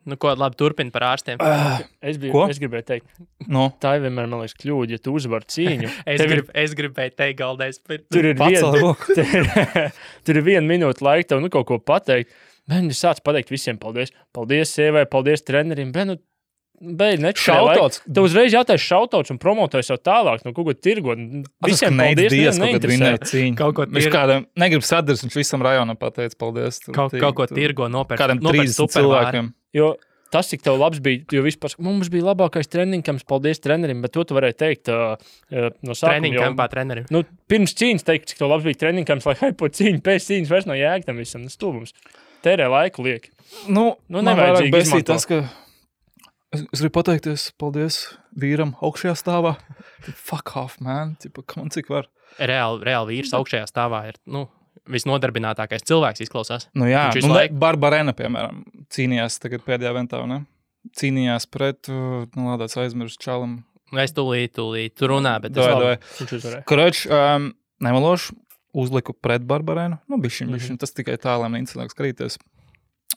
Nu, ko labi turpina par ārstiem. Es gribēju teikt, No. tā ir vienmēr, man liekas, kļūda, ja tu uzvar cīņu. Es gribēju teikt, Galdais. Tur ir Pacēl roku. tur ir 1 minūte laika tev kaut ko pateikt. Bet es sācu pateikt visiem paldies. Paldies sievai, paldies trenerim. Bet, beidz Šautauts. Tev uzreiz jātais šautauts un promotēs jau tālāk, kaut ko tirgot. Visiem paldies, Dievs, kaut kad neinteresē. vinēja cīņu. Kaut ko Viņš kādam negrib sadars, viņš visam rajonam pateica paldies. Kaut ko tirgo nopērk. Kādam 30 cilvēkiem. Jo tas, cik tev labs bija, jo vispār mums bija labākais treniņkams, paldies trenerim, bet to tu varēji teikt no sākuma. Treniņkampā trenerim. Nu, pirms cīņas teikt, cik tev labs bija treniņkams, lai haipo cīņu, pēc cīņas vairs nav jēga tam visam. Tas stulbums. Tērē laiku lieki. Nu man nevajadzīgi vairāk besīt izmantot. tas, ka es gribu pateikties paldies vīram augšajā stāvā. Fuck off, man. Tipa, man cik var. Reāli vīrs augšējā stāvā ir, visnodarbinātākais cilvēks izklausās. Nu jā, Viņš visu laiku- Barbarena, piemēram, cīnījās tagad pēdējā ventā, ne? Cīnījās pret, lādāts aizmirst čalam. Es tūlīt, tu runā, bet Doj. Viņš uzvarēja. Kroč, nemalošu, uzliku pret Barbarenu. Bišķiņ, tas tikai tā, lai man incidents krīties.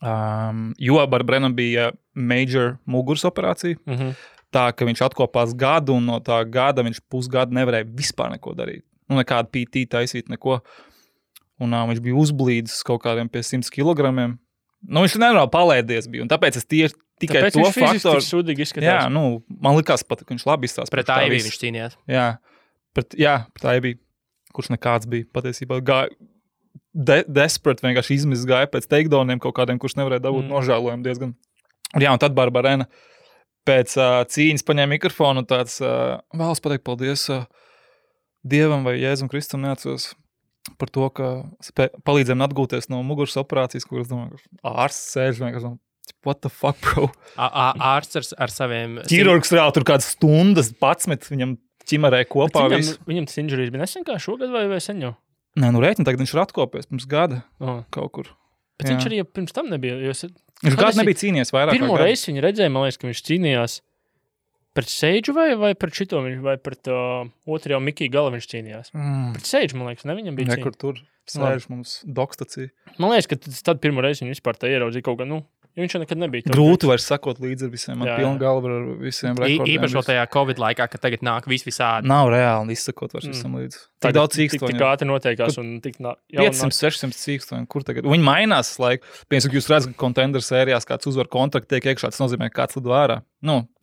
Jo Barbarenam bija major muguras operācija, tā, ka viņš atkopās gadu, un no tā gada viņš pusgadu nevarēja vispār neko darīt. Nekādu PT taisīt, neko. Un viņš bija uzblīdis kaut kādiem pie 100 kilogramiem. Viņš nenormāli palēdies bija, un tāpēc es tikai Tāpēc to viņš fiziski faktoru... tik sūdīgi izskatās. Jā, man likās pat, ka viņš labi izstās. pret Aivī viņš cīnījās. Jā, pret Aivī, kurš nekāds bija patiesībā. Desperate vienkārši izmiss gāja pēc takedowniem kaut kādiem, kurš nevarēja dabūt nožēlojumu diezgan. Jā, un tad Barbarena pēc cīņas paņēma mikrofonu un tāds vēlas pateikt paldies Dievam vai Jēzum Kristum neatceros par to, ka palīdzējām atgūties no muguras operācijas, kur es domāju, ka ārsts sēž vienkārši, what the fuck, bro? Ārsts ar saviem... Ķirurgs reāli tur kādas stundas 11 viņam ķimerē kopā visu. Viņam tas injuries bija nesen kā šogad vai sen jau? Nē, rēķini, tagad viņš ir atkopies pirms gada kaut kur. Bet viņš arī pirms tam nebija. Viņš gadu nebija cīnījies vairāk. Pirmo reizi viņu redzēja, man liekas, ka viņš cīnījās pret Seidžu vai pret šito, vai pret otrajā Mikiju Gala viņš cīnījās. Pret Seidžu, man liekas, ne viņam bija cīņa. Nekur tur sēž mums dokstacija. Man liekas, ka tad pirmo reizi viņu vispār tā ieraudzīja kaut kā, jo viņš jau nekad nebija. Grūti vairs sakot līdzi ar visiem, man pilna galva ar visiem rekordiem. Īpaši tajā Covid laikā, kad tagad nāk visādi. Nav reāli izsakot vairs visam līdzi. Tik daudz cīkstoņu. Tik ātri noteikās un tik 500-600 cīkstoņu, kur tagad? Viņi mainās laiku. Piemēram, jūs redzat, ka Contender sērijās kāds uzvar kontraktu tiek iekšā, tas nozīmē, ka kāds lido ārā.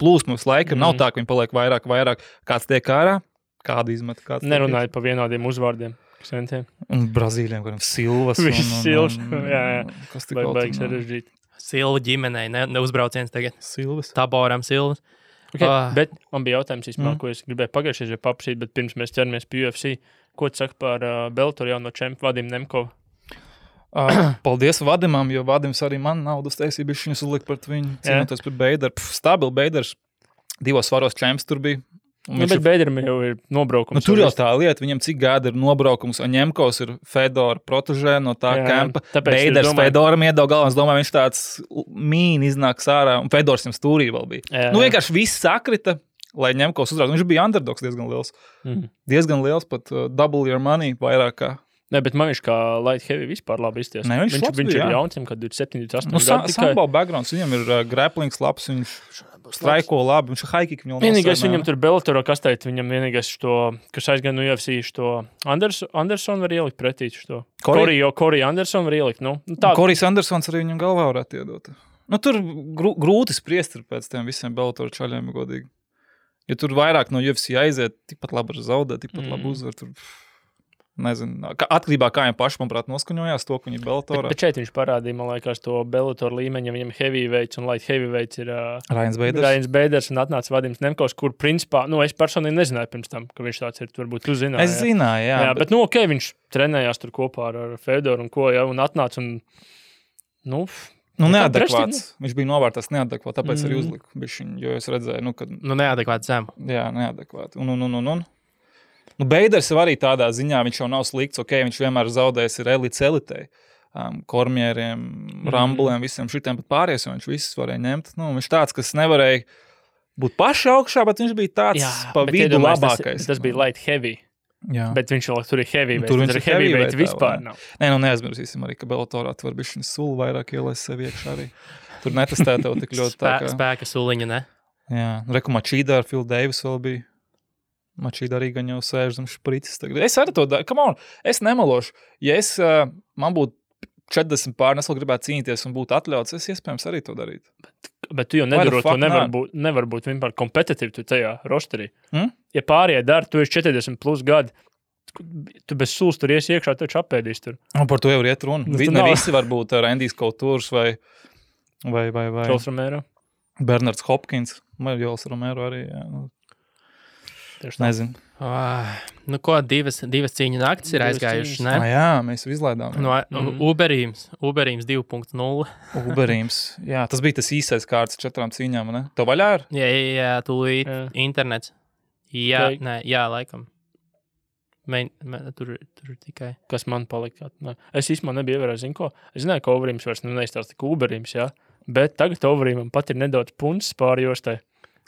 Plūsmas laika nav tā, ka viņi paliek vairāk. Kāds tiek ārā, kādu izmet. Nerunājot pa vienādiem uzvārdiem. Un Brazīļiem, kādam Silvas. Silvas, jā. Kas tik baigs sarežģīt. Silva ģimenei, neuzbrauciens tagad. Silvas. Taboram Silvas. Okay, bet man bija jautājums īstenībā, ko es gribēju pagājušajā paprasīt, bet pirms mēs ķeramies pie UFC, ko tu saki par Bellator jauno čempu Vadim Nemkovu? Paldies Vadimam, jo Vadims arī man naudas taisīja, viņus uzlikt pret viņu, cīnoties pret Beideru. Stabil Beiders, 2 svaros čemps tur bija. Bet Beideram jau ir nobraukums. Tur jau tā lieta, viņam cik gada ir nobraukums, un Ņemkovs ir Fedora protežē no tā kempa. Beiders Fedoram iedod galvā, es domāju, viņš tāds mīni iznāks ārā, un Fedors viņam stūrī vēl bija. Vienkārši viss sakrita, lai Ņemkovs uzrādītu. Viņš bija underdogs diezgan liels. Diezgan liels, pat double your money vairāk kā. Ne, bet man viņš kā light heavy vispār labi izties. Ne, viņš ir jauns, kad 27, 28 gadi. Sambo backgrounds, viņam ir grapplings labs, viņš straiko labi, viņš ir high kick. Vienīgais viņam tur Bellatorā kastēt, viņam vienīgais kas aizgan no UFC, Anderson var ielikt pretī. Corey Anderson var ielikt. Corey's Andersons arī viņam galvā varētu iedot. Tur grūti spriest ir pēc tiem visiem Bellator čaļiem, godīgi. Ja tur vairāk no UFC aiziet, tikpat labi var zaudēt, tikpat labi uzvar, tur... Nezinu, atkarībā kā viņam paši, manuprāt, noskaņojās to, ka viņi ir Bellatorā. Bet šeit viņš parādīja, man liekas, to Bellator līmeņa, viņam heavyweights un light heavyweights ir Ryans Beiders un atnāca Vadims Nemkovs, kur principā, es personīgi nezināju pirms tam, ka viņš tāds ir, varbūt tu zināji. Es zināju, jā. Bet viņš trenējās tur kopā ar Fedoru un ko, un atnāca un, neadekvāts. Viņš bija novērtās neadekvāts, tāpēc arī uzliku bišķiņu, jo es redzēju, kad... neadekvāts zem. Jā, neadekvāts. Beiders jau arī tādā ziņā, viņš jau nav slikts, viņš vienmēr zaudējis ir elites elitei, kormieriem, rambuliem, visiem šitiem, bet pārējais, viņš visus varēja ņemt. Viņš tāds, kas nevarēja būt paši augšā, bet viņš bija tāds pa vidu labākais. Tas bija light heavy. Jā. Bet viņš vēl tur ir heavyweight. Tur viņš ir heavyweight vispār nav. Nē, neaizmirsīsim arī, ka Bellatorā tu var bišķiņu sulu vairāk ielaist sev iekšā arī. tur netestē tev tik ļoti tā kā... Spēka suliņa, ne? Jā, reku Mačīdā ar Phil Davis vēl bija. Mačīda arī gan jau sēž zem špricis. Es arī to daru. Come on, es nemalošu. Ja man būtu 40 pār, es vēl gribētu cīnīties un būtu atļauts, es iespējams arī to darītu. Bet tu jau nedarot, to nevar būt vienmēr kompetitīvi tu tajā rosterī. Ja pārējie dara, tu esi 40 plus gadi, tu bez sulas tur iesi iekšā, taču apēdīs tur. Un par to jau iet runa. Ne visi var būt Randijs Kautūrs vai Jols Romero. Bernards Hopkins, vai Jols Romero arī, jā. Nezinu. Nu ko, divas cīņu naktis ir aizgājušas, ne? Jā, mēs jau izlaidām. Uberīms 2.0. Uberīms, jā, tas bija tas īsais kārts 4 cīņām, ne? To vaļā ir? Jā, tūlīt internets. Jā, laikam. Tur tikai. Kas man palika? Es īstenībā nebiju ievērājis, zinu ko. Es zināju, ka Uberīms vairs neizstāsta tik Uberīms, jā. Bet tagad Uberīmam pat ir nedaudz puncis pāri jostai.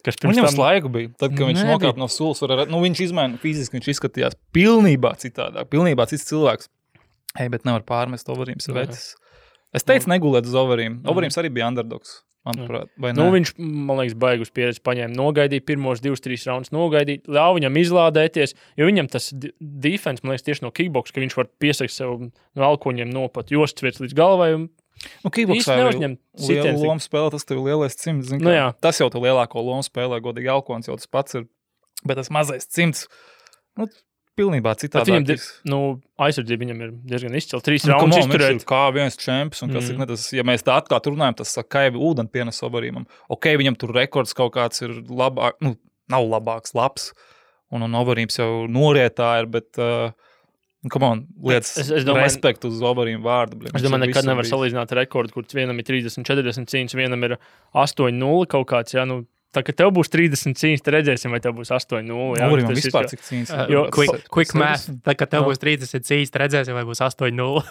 Viņam slaigu bija. Tad, kad viņš nokāp no sulas, viņš izmaina fiziski, viņš izskatījās pilnībā citādāk, pilnībā cits cilvēks. Bet nevar pārmest Overīms vecis. Es teicu negulēt uz Overīm. Overīms arī bija underdogs, manuprāt, vai ne? Viņš, man liekas, baigus pieredzi paņēma, nogaidīja pirmos 2-3 raundus, nogaidīja, ļauj viņam izlādēties, jo viņam tas defense, man liekas, tieši no kickbox, ka viņš var piesakt sev no alkoņiem nopat jostviets līdz galvai un kickboksā ir liela loma spēlē, tas tev lielais cimds. Tas jau tev lielāko lomu spēlē, godīgi alkons jau tas pats ir, bet tas mazais cimds, pilnībā citādāk. Aizsardzība viņam ir diezgan izcila. 3 raundus izturēt. Viņš ir kā viens čemps, un kas ir, ja mēs tā atklāt runājam, tas saka, ka ūdeni pienes Overīmam. Viņam tur rekords kaut kāds ir labāk, nav labāks, labs, un Overīms jau norietā ir, bet... lietas respektu uz Overīm vārdu. Es domāju, nekad nevar salīdzināt rekordu, kur vienam ir 30-40 cīņas, vienam ir 8-0 kaut kāds, jā, tā, ka tev būs 30 cīņas, te redzēsim, vai tev būs 8-0. Overīmam vispār cik cīņas. Quick math, tā, ka tev būs 30 cīņas, te redzēsim, vai būs 8-0.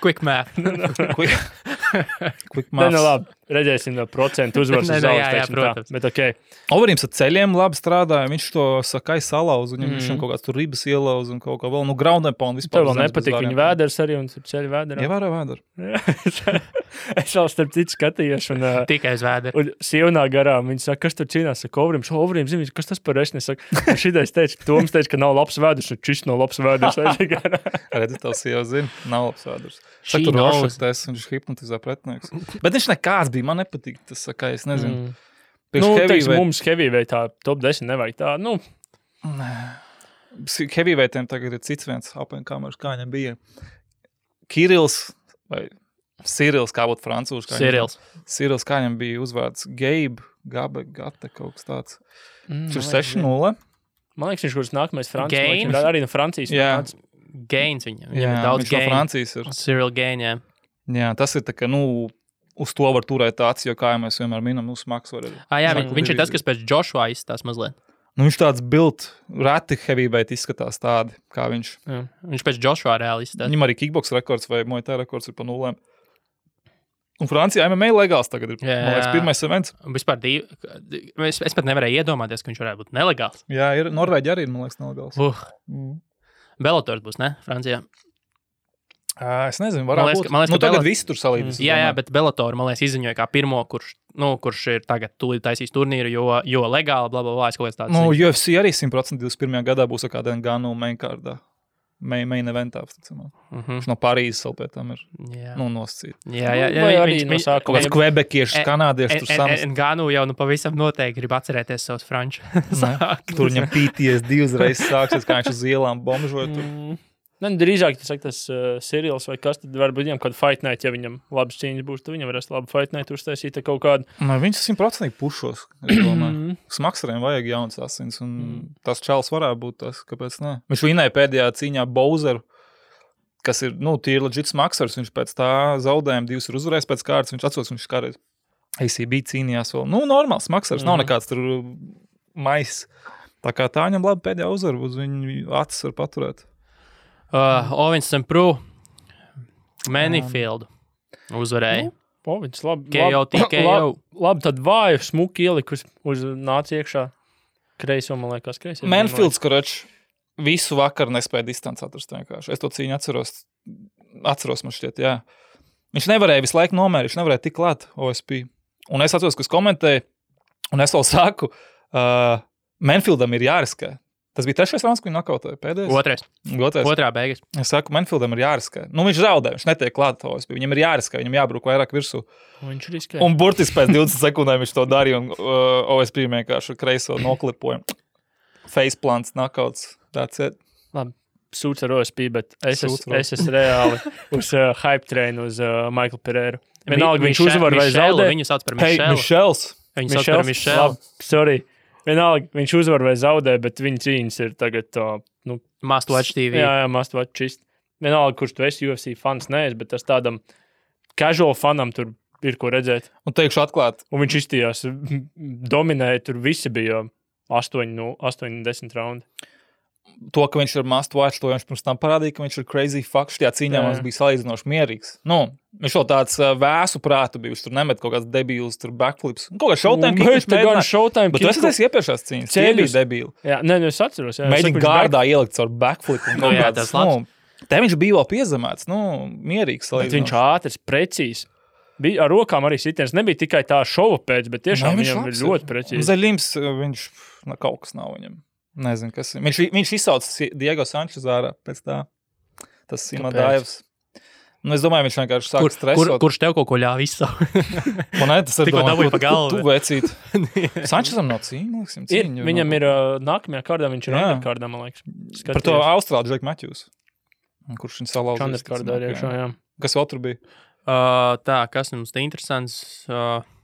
Quick math. Quick math. Labi, redzēsim no procentu uzvaras uz zaudēšanu. Protams. Bet okei. Overīms ar ceļiem labi strādāja, viņš to sakai salauz, un viņam kaut kāds tur ribas ielauz un kaut kā vēl, ground and pound vispār. Tev vēl nepatīk viņa vēders arī, un tur ceļi vēderā. Ievēro vēderu. Es vēl starp citu skatījos, un tikai uz vēderu. Un sievnā garām viņi saka, kas tur cīnās, saka, Overīms, zini, kas tas par esni, saka, šitais teica, Toms teica, ka nav labs vēders, un šis nav labs vēders. Redzi, tavs sieva zina, nav labs vēders. Saka, tur rošaktēs, un viņš hipnotizē pretinieks. Bet viņš nekāds bija, man nepatīk tas, saka, es nezinu. Mums heavyweightā top 10 nevajag tā, Heavyweightiem tagad ir cits viens up-and-comers, kā viņam bija. Kirils vai Cyrils, kā būtu francūši. Cyrils, kā viņam bija uzvārds Gate, kaut kas tāds. Viņš ir 6-0. Man liekas, viņš kurš nākamais Francijas. Arī no Francijas. Jā. Gains viņam. Jā, daudz viņš no Francijas ir. Cyril Gain, jā. Jā, tas ir tā, ka, uz to var turēt tāds, jo kā mēs vienmēr minam, smags var arī. Viņš ir tas, kas pēc Joshua izstās mazliet. Viņš tāds built, reti heavyweight izskatās tādi, kā viņš. Jā. Viņš pēc Joshua reāli izstās. Viņam arī kickbox rekords vai Muay Thai rekords ir pa 0. Un Francijā MMA legāls tagad ir, man liekas, pirmais events. Vispār es pat nevarēju iedomāties, ka viņš varētu būt nelegāls. Jā, ir Norvēģi arī, man liekas, nelegāls. Bellators būs, ne? Francijā. Es nezinu, varētu būt. Tagad visi tur salīdzinās. Jā, bet Bellator, man liekas, izziņoja kā pirmo, kurš ir tagad tūlīt taisīs turnīru, jo legāli, blablabla, es kaut kāds tāds. UFC arī 100% 21. gadā būs kādā Ganu mainkārdā. Main eventā, viņš no Parīzes vēl pēc tam ir nosacīt. Jā, viņš kaut kāds kvebekiešs, kanādieši tur samas. Ganu jau pavisam noteikti grib atcerēties savus franču. Tur viņam PTSD uzreiz sāksies, kā viņš uz ielām bombžoja tur. Drīzāk tas Cyrils vai kas, tad varbūt viņam kādu fight night, ja viņam labas cīņas būs, tad viņam varēs labu fight night uztaisīt kaut kādu. Viņš 100% pušos, es domāju. Smaksariem vajag jauns asins, un tas čals varētu būt tas, kāpēc ne. Viņš vinēja pēdējā cīņā Bowseru, kas ir, tīri legit smaksars, viņš pēc tā zaudējuma 2 ir uzvarējis pēc kārtas, viņš atsos, viņš kādreiz ACB cīnījās vēl. Normāls smaksars, nav nekāds tur mais. Tā kā tā viņam labi pēdējā uzvaru, uz viņu acis var paturēt. Owens St. Preux Manifield uzvarēja. Owens labi. KO. Labi, tad vāju smuki ielikus uz nāca iekšā. Kreiso, man liekas, kreiso. Manifields, kurač visu vakaru nespēja distanci atrast vienkārši. Es to cīņu atceros man šķiet, jā. Viņš nevarēja visu laiku nomērīt, viņš nevarēja tik klāt OSP. Un es atceros, ka es komentēju, un es vēl saku, Manfieldam ir jāriskē. Tas bija 3. rauns, ko viņi nokautoja pēdējais? Otrā beigas. Es saku, Manfieldam ir jāriskē. Nu, viņš zaudē, viņš netiek klāt OSP. Viņam ir jāriskē, viņam jābruk vairāk virsū. Viņš riskē. Un burtiski pēc 20 sekundēm viņš to darīja, un OSP vienkārši kreiso noklipoja. Faceplants, knockouts, that's it. Labi, sūds ar OSP, bet es esmu reāli uz hype train uz Michael Pereiru. Vienalga, viņš uzvar vai zaudē. Viņu sauc par Mišelu. Mišels. Viņu sauc par Mišelu. Labi, sorry. Vienalga, viņš uzvar vai zaudē, bet viņa cīņas ir tagad Must Watch TV. Jā, Must Watch čist. Vienalga, kurš tu esi UFC fans, neesi, bet tas tādam casual fanam tur ir ko redzēt. Un teikšu atklāt. Un viņš izstījās, dominēja, tur visi bija 8-10 raundi. To, ka viņš ir must watch, to viņš pirms tam parādīja, ka viņš ir crazy fuck. Šajā cīņā mums bija salīdzinoši mierīgs. Nu, viņš vēl tāds vēsu prātu bija, viņš tur nemet kaut kāds debīls, tur backflips. Kaut kā showtime kick viņš mēģināja. Bet tu esi teicis iepriekšās cīņas, tie bija debīli. Jā, es atceros. Mēģina gārdā ielikt caur backflip. Jā, tas labs. Te viņš bija vēl piezemēts, mierīgs salīdzinoši. Bet viņš ātrs, precīzs. Bija ar rokām arī sitiens. Nebija tikai tā šova pēc, bet tiešām viņam ir ļoti precīzi. Zaļims, viņš kaut kas nav viņam. Nezinu, kas ir. Viņš izsauc Diego Sančes ārā pēc tā. Tas Simadājevs. Nu, es domāju, viņš vienkārši sāk stresot. Kurš tev kaut ko ļāva izsaukt? Man tas ir tikko dabūja pa galvu. Tu vecīt. Sančesam nav cīņa. Viņam ir nākamajā kārdā, viņš ir underkārdā, man liekas. Par to Austrālu Džeku Matthews. Kurš viņš salauzīs. Underkārdā ir iekšā, jā. Kas vēl tur bija? Tā, kas mums te interesants?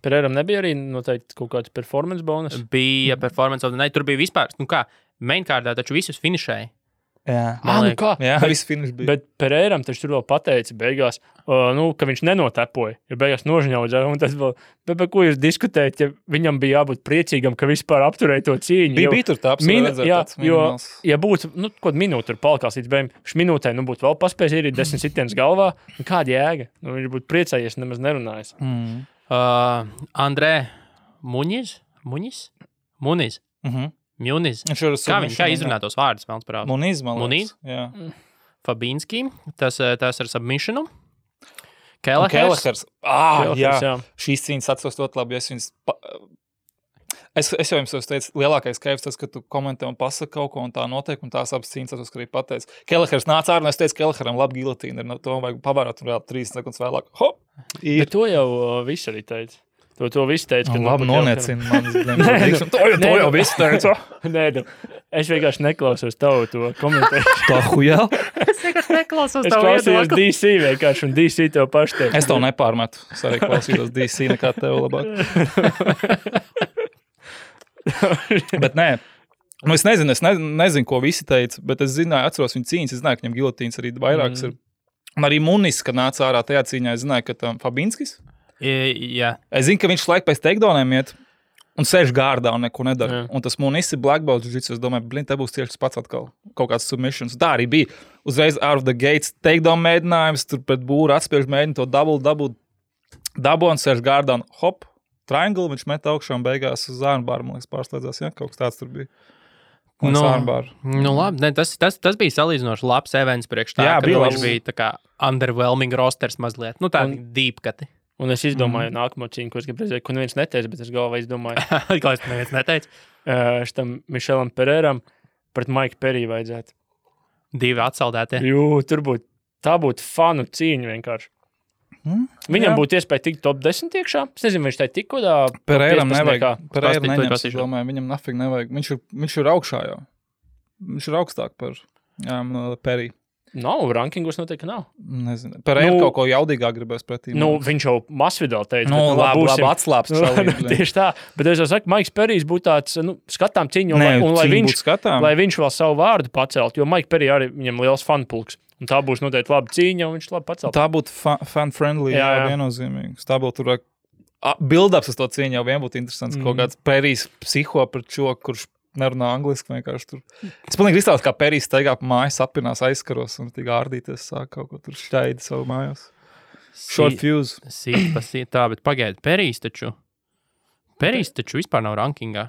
Pereiram nebija arī noteikti kaut kāds performance bonus? Bija performance, ne, tur bija vispār, mainkārdā taču visus finišēja. Jā, kā? Jā, viss finiš bija. Bet Pereiram taču tur vēl pateica beigās, ka viņš nenotepoja, jo beigās nožņaudzēja, un tas vēl, bet ko jūs diskutējat, ja viņam bija jābūt priecīgam, ka vispār apturēja to cīņu? Bija tur tā redzēt tāds minimāls. Ja būtu, kaut minūte tur palikās līdz beigām, šis minūtē, būtu vēl paspējis ierīt 10 sitienas galvā, kāda jēga? Viņš būtu priecājies, nemaz nerunājis. Andrē Muniz? Kā izrunā tos vārdus? Muniz. Jā. Fabīnski, tas ar submissionu. Kelehers. Jā. Šīs cīņas atceros ļoti labi. Es jau jums teicu, lielākais kaivs tas, ka tu komentē un pasaka kaut ko, un tā notiek, un tās abas cīņas atceros, ka arī pateicu. Kelehers nāca ārā, un es teicu, Keleheram labi gilotīna, to vajag pavērot, un vēl 30 sekundes vēlāk. Hop! Bet to jau viss arī teica. To viss teica, ka... Labi, noniecina manis. To jau viss teica. Nē, es vienkārši neklausos tavu to komentēju. Tā hujā? Es vienkārši neklausos tavu viedokli. Es klausījos DC vienkārši, un DC tev paši teica. Es tev nepārmetu. Es arī klausījos DC nekā tev labāk. Bet nē. Es nezinu, ko visi teica, bet es zināju, atceros viņu cīņas, es zināju, ka viņam gilotīns arī vairākas ir. Un arī Munis, kad nāca ārā tajā cīņā, es zināju, ka tam Fabinskis. Jā. Es zinu, ka viņš laik pēc takedowniem iet un sēž gārdā un neko nedara. Un tas Munis ir black belt jiu-jitsu, es domāju, te būs tieši tas pats atkal. Kaut kāds submissions. Tā arī bija. Uzreiz out of the gates takedown mēģinājums, tur pret būru atspiež mēģina to dabu un sēž gārdā un hop, triangle, viņš met augšā un beigās uz armbāru, man liekas, pārslēdzās, ja? Kaut kas tāds tur bija. Labi, ne, tas bija salīdzinoši labs events priekš tā, ka viņš bija tā kā underwhelming rosters mazliet. Tādi deep kati. Un es izdomāju nākamo cīņu, ko es gribu redzēt, ko neviens neteica, bet es galvā izdomāju. Ko es neviens neteica? Šitam Mišelam Pereiram pret Maiku Periju vajadzētu. 2 atsaldētie. Tur tā būtu fanu cīņa vienkārši. Viņam būtu iespēja tikt top 10 iekšā. Es nezinu, viņš tai tik kodā. Pereiram nevajag. Pereiram neņems, es domāju, viņam nafig nevajag. Viņš ir augšā jau. Viņš ir augstāk par Periju. Nav, rankingos noteikti nav. Nezinu. Pereira kaut ko jaudīgāk gribēs pretī. Viņš jau masvidēl teica. Labi atslāps. Tieši tā. Bet es jau saku, Maiks Perijs būtu tāds, skatām cīņu, un lai viņš vēl savu vārdu pacelt, jo Maika Perija arī viņam liels fanpulks. Un tā būs noteikti laba cīņa, un viņš labi pacelt. Tā būtu fan-friendly, jā, viennozīmīgi. Tā būtu tur build-ups uz to cīņu jau vien būtu interesants. Kaut kāds Perijs psiho par čo, kurš nerunā angliski vienkārši tur. Es pilnīgi izstāstu, kā Perijs steigā pa mājas, apinās aizskaros un tik ārdīties sāk kaut ko tur šķaidi savu mājās. Short fuse. Tā, bet pagaidi, Perijs taču vispār nav rankingā.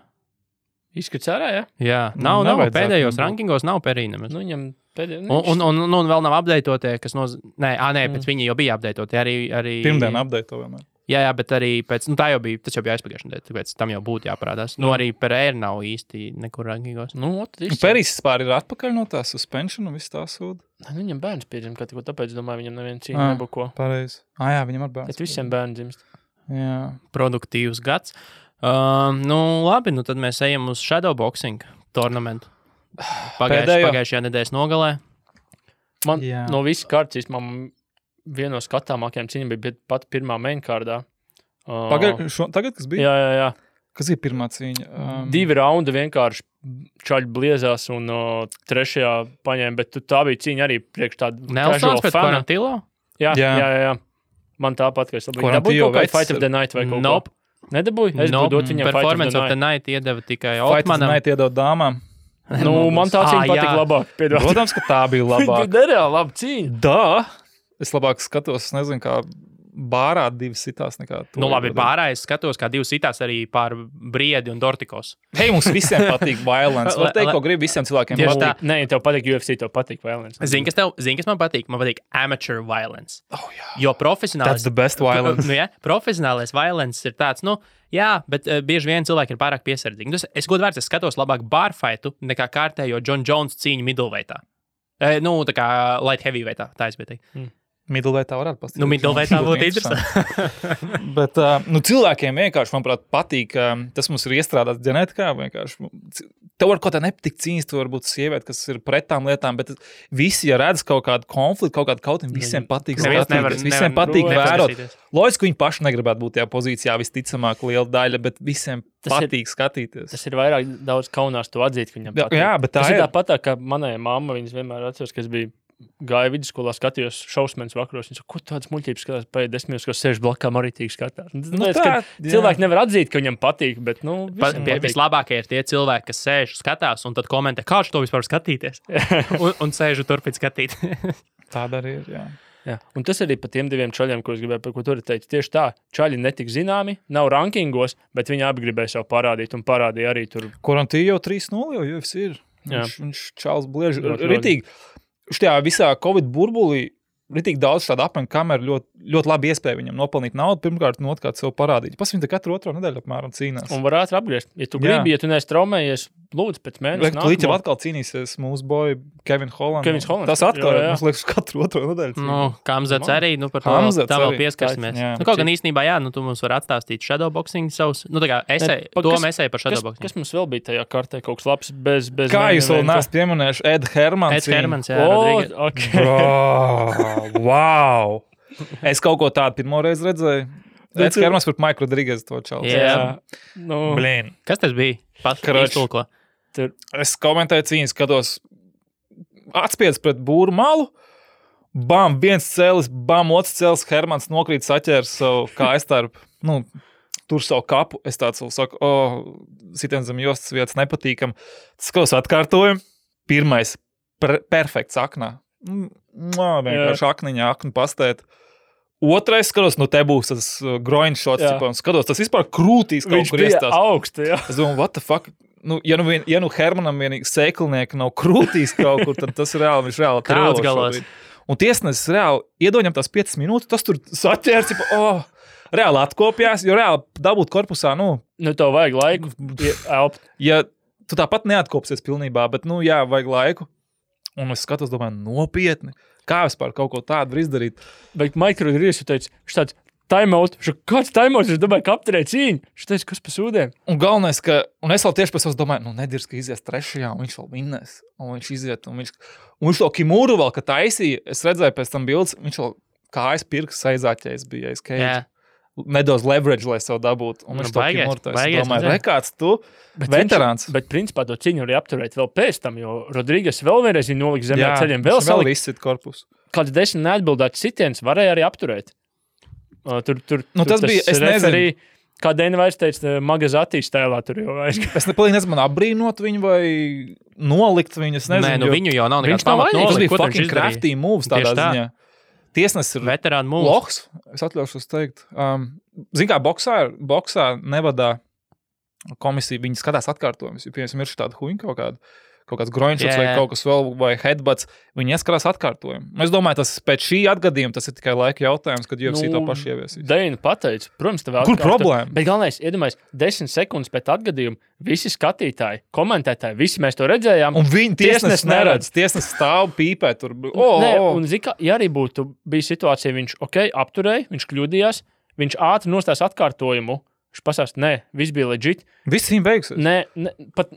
Izskats ārā, ja? Jā, nav pēdējos rankingos, nav Perija nemaz. Viņam Un vēl nav updatētie, kas Nē, pēc viņi jau bija updatētie. Arī... Pirmdien updatēto vēl ne. Jā, bet arī pēc... tā jau bija, tas jau bija aizpagājušajā nedēļā, tāpēc tam jau būtu jāparādās. Arī Pereira nav īsti nekur rankīgos. Peris vispār ir atpakaļ no tā suspension un viss tā sūda. Viņam bērns piedzim, tāpēc, domāju, viņam neviena cīņa nebuko. Pareizi. Jā, viņam ar bērns. Bet visiem bērni dzimst. Jā. Produktīvs gads. Labi, tad mēs ejam uz shadowboxing tournamentu. Pagājušajā nedēļas nogalē. Man no visas kārtas, man viena no skatāmākajām cīņām bija pat pirmā mainkārdā. Tagad, kas bija? Jā. Kas ir pirmā cīņa? 2 raundi vienkārši čaļi bliezās un trešajā paņēma, bet tā bija cīņa arī priekš tādu Nelsons pēc Quarantillo? Jā. Man tāpat, ka es labāk dabūju kaut kā Fight of the Night vai kaut ko. Nedabūju? Es būtu dot viņam Performance of the Night iedeva tikai Otmanam. Fight of the Night iedeva dāmām. Man tā cīņa patika labāk. Protams, ka tā bija labāk. Bija nereāli laba cīņa. Es labāk skatos, nezinu, kā bārā 2 sitās nekā to. Labi, bārā es skatos, kā 2 sitās arī pār Briedi un Dortikos. Hei, mums visiem patīk violence. Var teikt, ko grib visiem cilvēkiem patīk. Nē, tev patīk UFC, tev patīk violence. Zini, kas man patīk? Man patīk amateur violence. Jā. Jo profesionālis... That's the best violence. Profesionālais violence ir tāds, jā, bet bieži vien cilvēki ir pārāk piesardzīgi. Es godvārds, es skatos labāk barfightu nekā kārtējo John Jones cīņu middleweightā. Tā kā light heavyweightā, tā es biju teikt. Middleweightā varētu pastāstīt. Middleweightā būtu interesanti. Bet cilvēkiem vienkārši, manuprāt, patīk, tas mums ir iestrādāts ģenētikā, vienkārši. Tev var kaut kā nepatikt cīņas, tu varbūt sievieti, kas ir pret tām lietām, bet visi, ja redz kaut kādu konfliktu, kaut kādu kautiņu, visiem patīk skatīties, visiem patīk vērot. Loģiski, viņi paši negribētu būt tajā pozīcijā, visticamāk liela daļa, bet visiem patīk skatīties. Tas ir vairāk daudz kaunās to atzīt, ka viņam patīk. Jā, bet tā ir tāpat, ka manai mamma, viņas vienmēr atceras, kas bija gāja vidusskolā, skatījos šausmenes vakaros. Viņa saka, ko tādas muļķības skatās, paiet 10 minūtes, ko sēž blakām arī tīk skatās. Cilvēki nevar atzīt, ka viņam patīk, bet, vislabākie ir tie cilvēki, kas sēž, skatās un tad komentē, kā to vispār skatīties. un sēž un turpin skatīt. Tāda arī ir, jā. Un tas arī par tiem 2 čaļiem, ko es gribēju, par ko tur teikt. Tieši tā, čaļi netik zināmi, nav rankingos, bet viņi abi gribēja sev parādīt un parādīja arī tur. Quarantillo jau 3-0 jau UFC ir. Viņš čāls blieži. Ritīgi. Šajā visā Covid burbulī ritīgi daudz šādu apmeņu kameru ļoti labi iespēja viņam nopelnīt naudu, pirmkārt, un otrkārt sev parādīt. Viņi te katru otro nedēļu apmēram cīnās. Un var ātri apgriezt. Ja tu gribi, ja tu neesi traumējies, lūdzu, pēc mēneša. Līdz jau atkal cīnīsies mūsu boy Kevin Holland. Tas atkal, mums liekas, katru otro nedēļu. Kamzats arī, par to tā vēl pieskarsimies. Kaut gan īstenībā, tu mums var atstāstīt shadowboxing savus, tā kā esēju par shadowboxing. Kas mums vēl bija tajā kartē kaut kas labs bez kā jūs vēl neesat pieminējuši Ed Hermans, Wow! Es kaut ko tādu pirmo reizi redzēju. Eds Hermans pret Mike Rodriguez to čalu. Blin. Kas tas bija? Iztulko. Es komentēju cīņas, skatos atspiedz pret būru malu. Bam, viens cēlis, bam, otrs cēlis. Hermans nokrīt saķērs savu kājstarp. Tur savu kapu. Es tāds saku, sitien zem jostas vietas nepatīkam. Skatos atkārtojumu. Pirmais perfekts aknā. Vienkārši aknu pastēt. Otrais skatos, te būs tas groin shots, skatos, tas vispār krūtīs kaut kur iestās. Viņš bija augstu, jā. Es domāju, what the fuck? Ja Hermanam vienīgi sēklinieki nav krūtīs kaut kur, tad tas reāli, viņš reāli trauc galās. Un tiesnesis reāli iedoņam tās 5 minūtes, tas tur saķērs, reāli atkopjās, jo reāli dabūt korpusā, tev vajag laiku elpt. Ja tu tāpat neatkopsies pilnībā, bet, vajag laiku. Un es skatos, domāju, nopietni. Kā vispār kaut ko tādu var izdarīt? Bet Mike Rodriguez teica, viņš tāds timeout. Kāds timeout? Viņš domāja, ka apturēja cīņu. Viņš teica, kas pa sūdēm. Un galvenais, un es vēl tieši pēc savas domāju, nedirs, ka izies 3. un viņš vēl vinnēs. Un viņš iziet, un viņš to Kimuru vēl, ka taisīja. Es redzēju pēc tam bildes, viņš vēl kājas pirks aizāķējis bija aiz Cage. Nedaudz leverage, lai sev dabūtu. Un viņš to Kimuru taisīja. Domāju, rekāds tu, veterāns. Bet principā to cīņu arī apturēt vēl pēc tam, jo Rodriguez vēl vienreiz viņa noliks zemē ceļiem. Vēl izsit korpusu. Kāds 10 neatbildēts sitiens varēja arī apturēt. Tas bija, es nezinu. Kā Dēna vairs teica, Magazatī stēlā tur jau vairs. Es nezinu, man apbrīnot viņu vai nolikt viņu, es nezinu. Nē, viņu jau nav nekāds pamat nolikt. Tas bija fucking crafty moves tādā ziņā. Tiesnesis ir veterānu mūs. Lohs, es atļaušos teikt. Zin kā, boksā nevadā komisija, viņi skatās atkārtojumus. Ja, piemēram, ir tāda huņa kaut kāda, kaut kāds groinšots vai kaut kas vēl, vai headbutts, viņi ieskarās atkārtojumu. Es domāju, tas pēc šī atgadījuma tas ir tikai laika jautājums, kad UFC to paši ieviesīs. Deina pateica, protams, tev Kur problēma? Bet galvenais, iedomājies, 10 sekundes pēc atgadījuma visi skatītāji, komentētāji, visi mēs to redzējām. Un viņi tiesnesis neredz, tiesnesis stāv pīpē tur. Un zika, ja arī būtu bija situācija, viņš apturēja, viņš kļūdījās, viņš ātri nostās atkārtojumu, viņš pasāst, nē, viss bija legit. Viss viņam beigsies. Nē, pat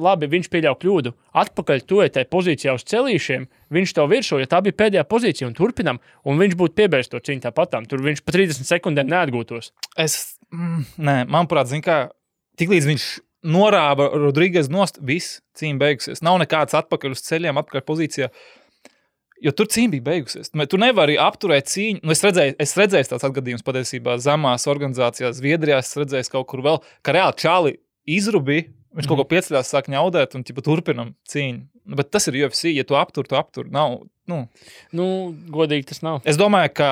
labi, viņš pieļauj kļūdu. Atpakaļ tu tai pozīcijā uz celīšiem, viņš to virsū, ja tā bija pēdējā pozīcija un turpinam, un viņš būtu piebērs to cīņu tāpatām. Tur viņš pa 30 sekundēm neatgūtos. Nē, manuprāt, zin kā, tiklīdz viņš norāva Rodriguez nost, viss cīņa beigusies. Nav nekāds atpakaļ uz ceļiem, atpakaļ pozīcijā. Jo tur cīņa bija beigusies. Tu nevari apturēt cīņu. Es redzēju tāds atgadījums patiesībā zemās organizācijās, Zviedrijā, es redzēju kaut kur vēl, ka reāli čāli izrubīja. Viņš kaut ko pieceļās, sāk ņaudēt un turpinam cīņu. Bet tas ir UFC, ja tu aptur. Nav, godīgi tas nav. Es domāju, ka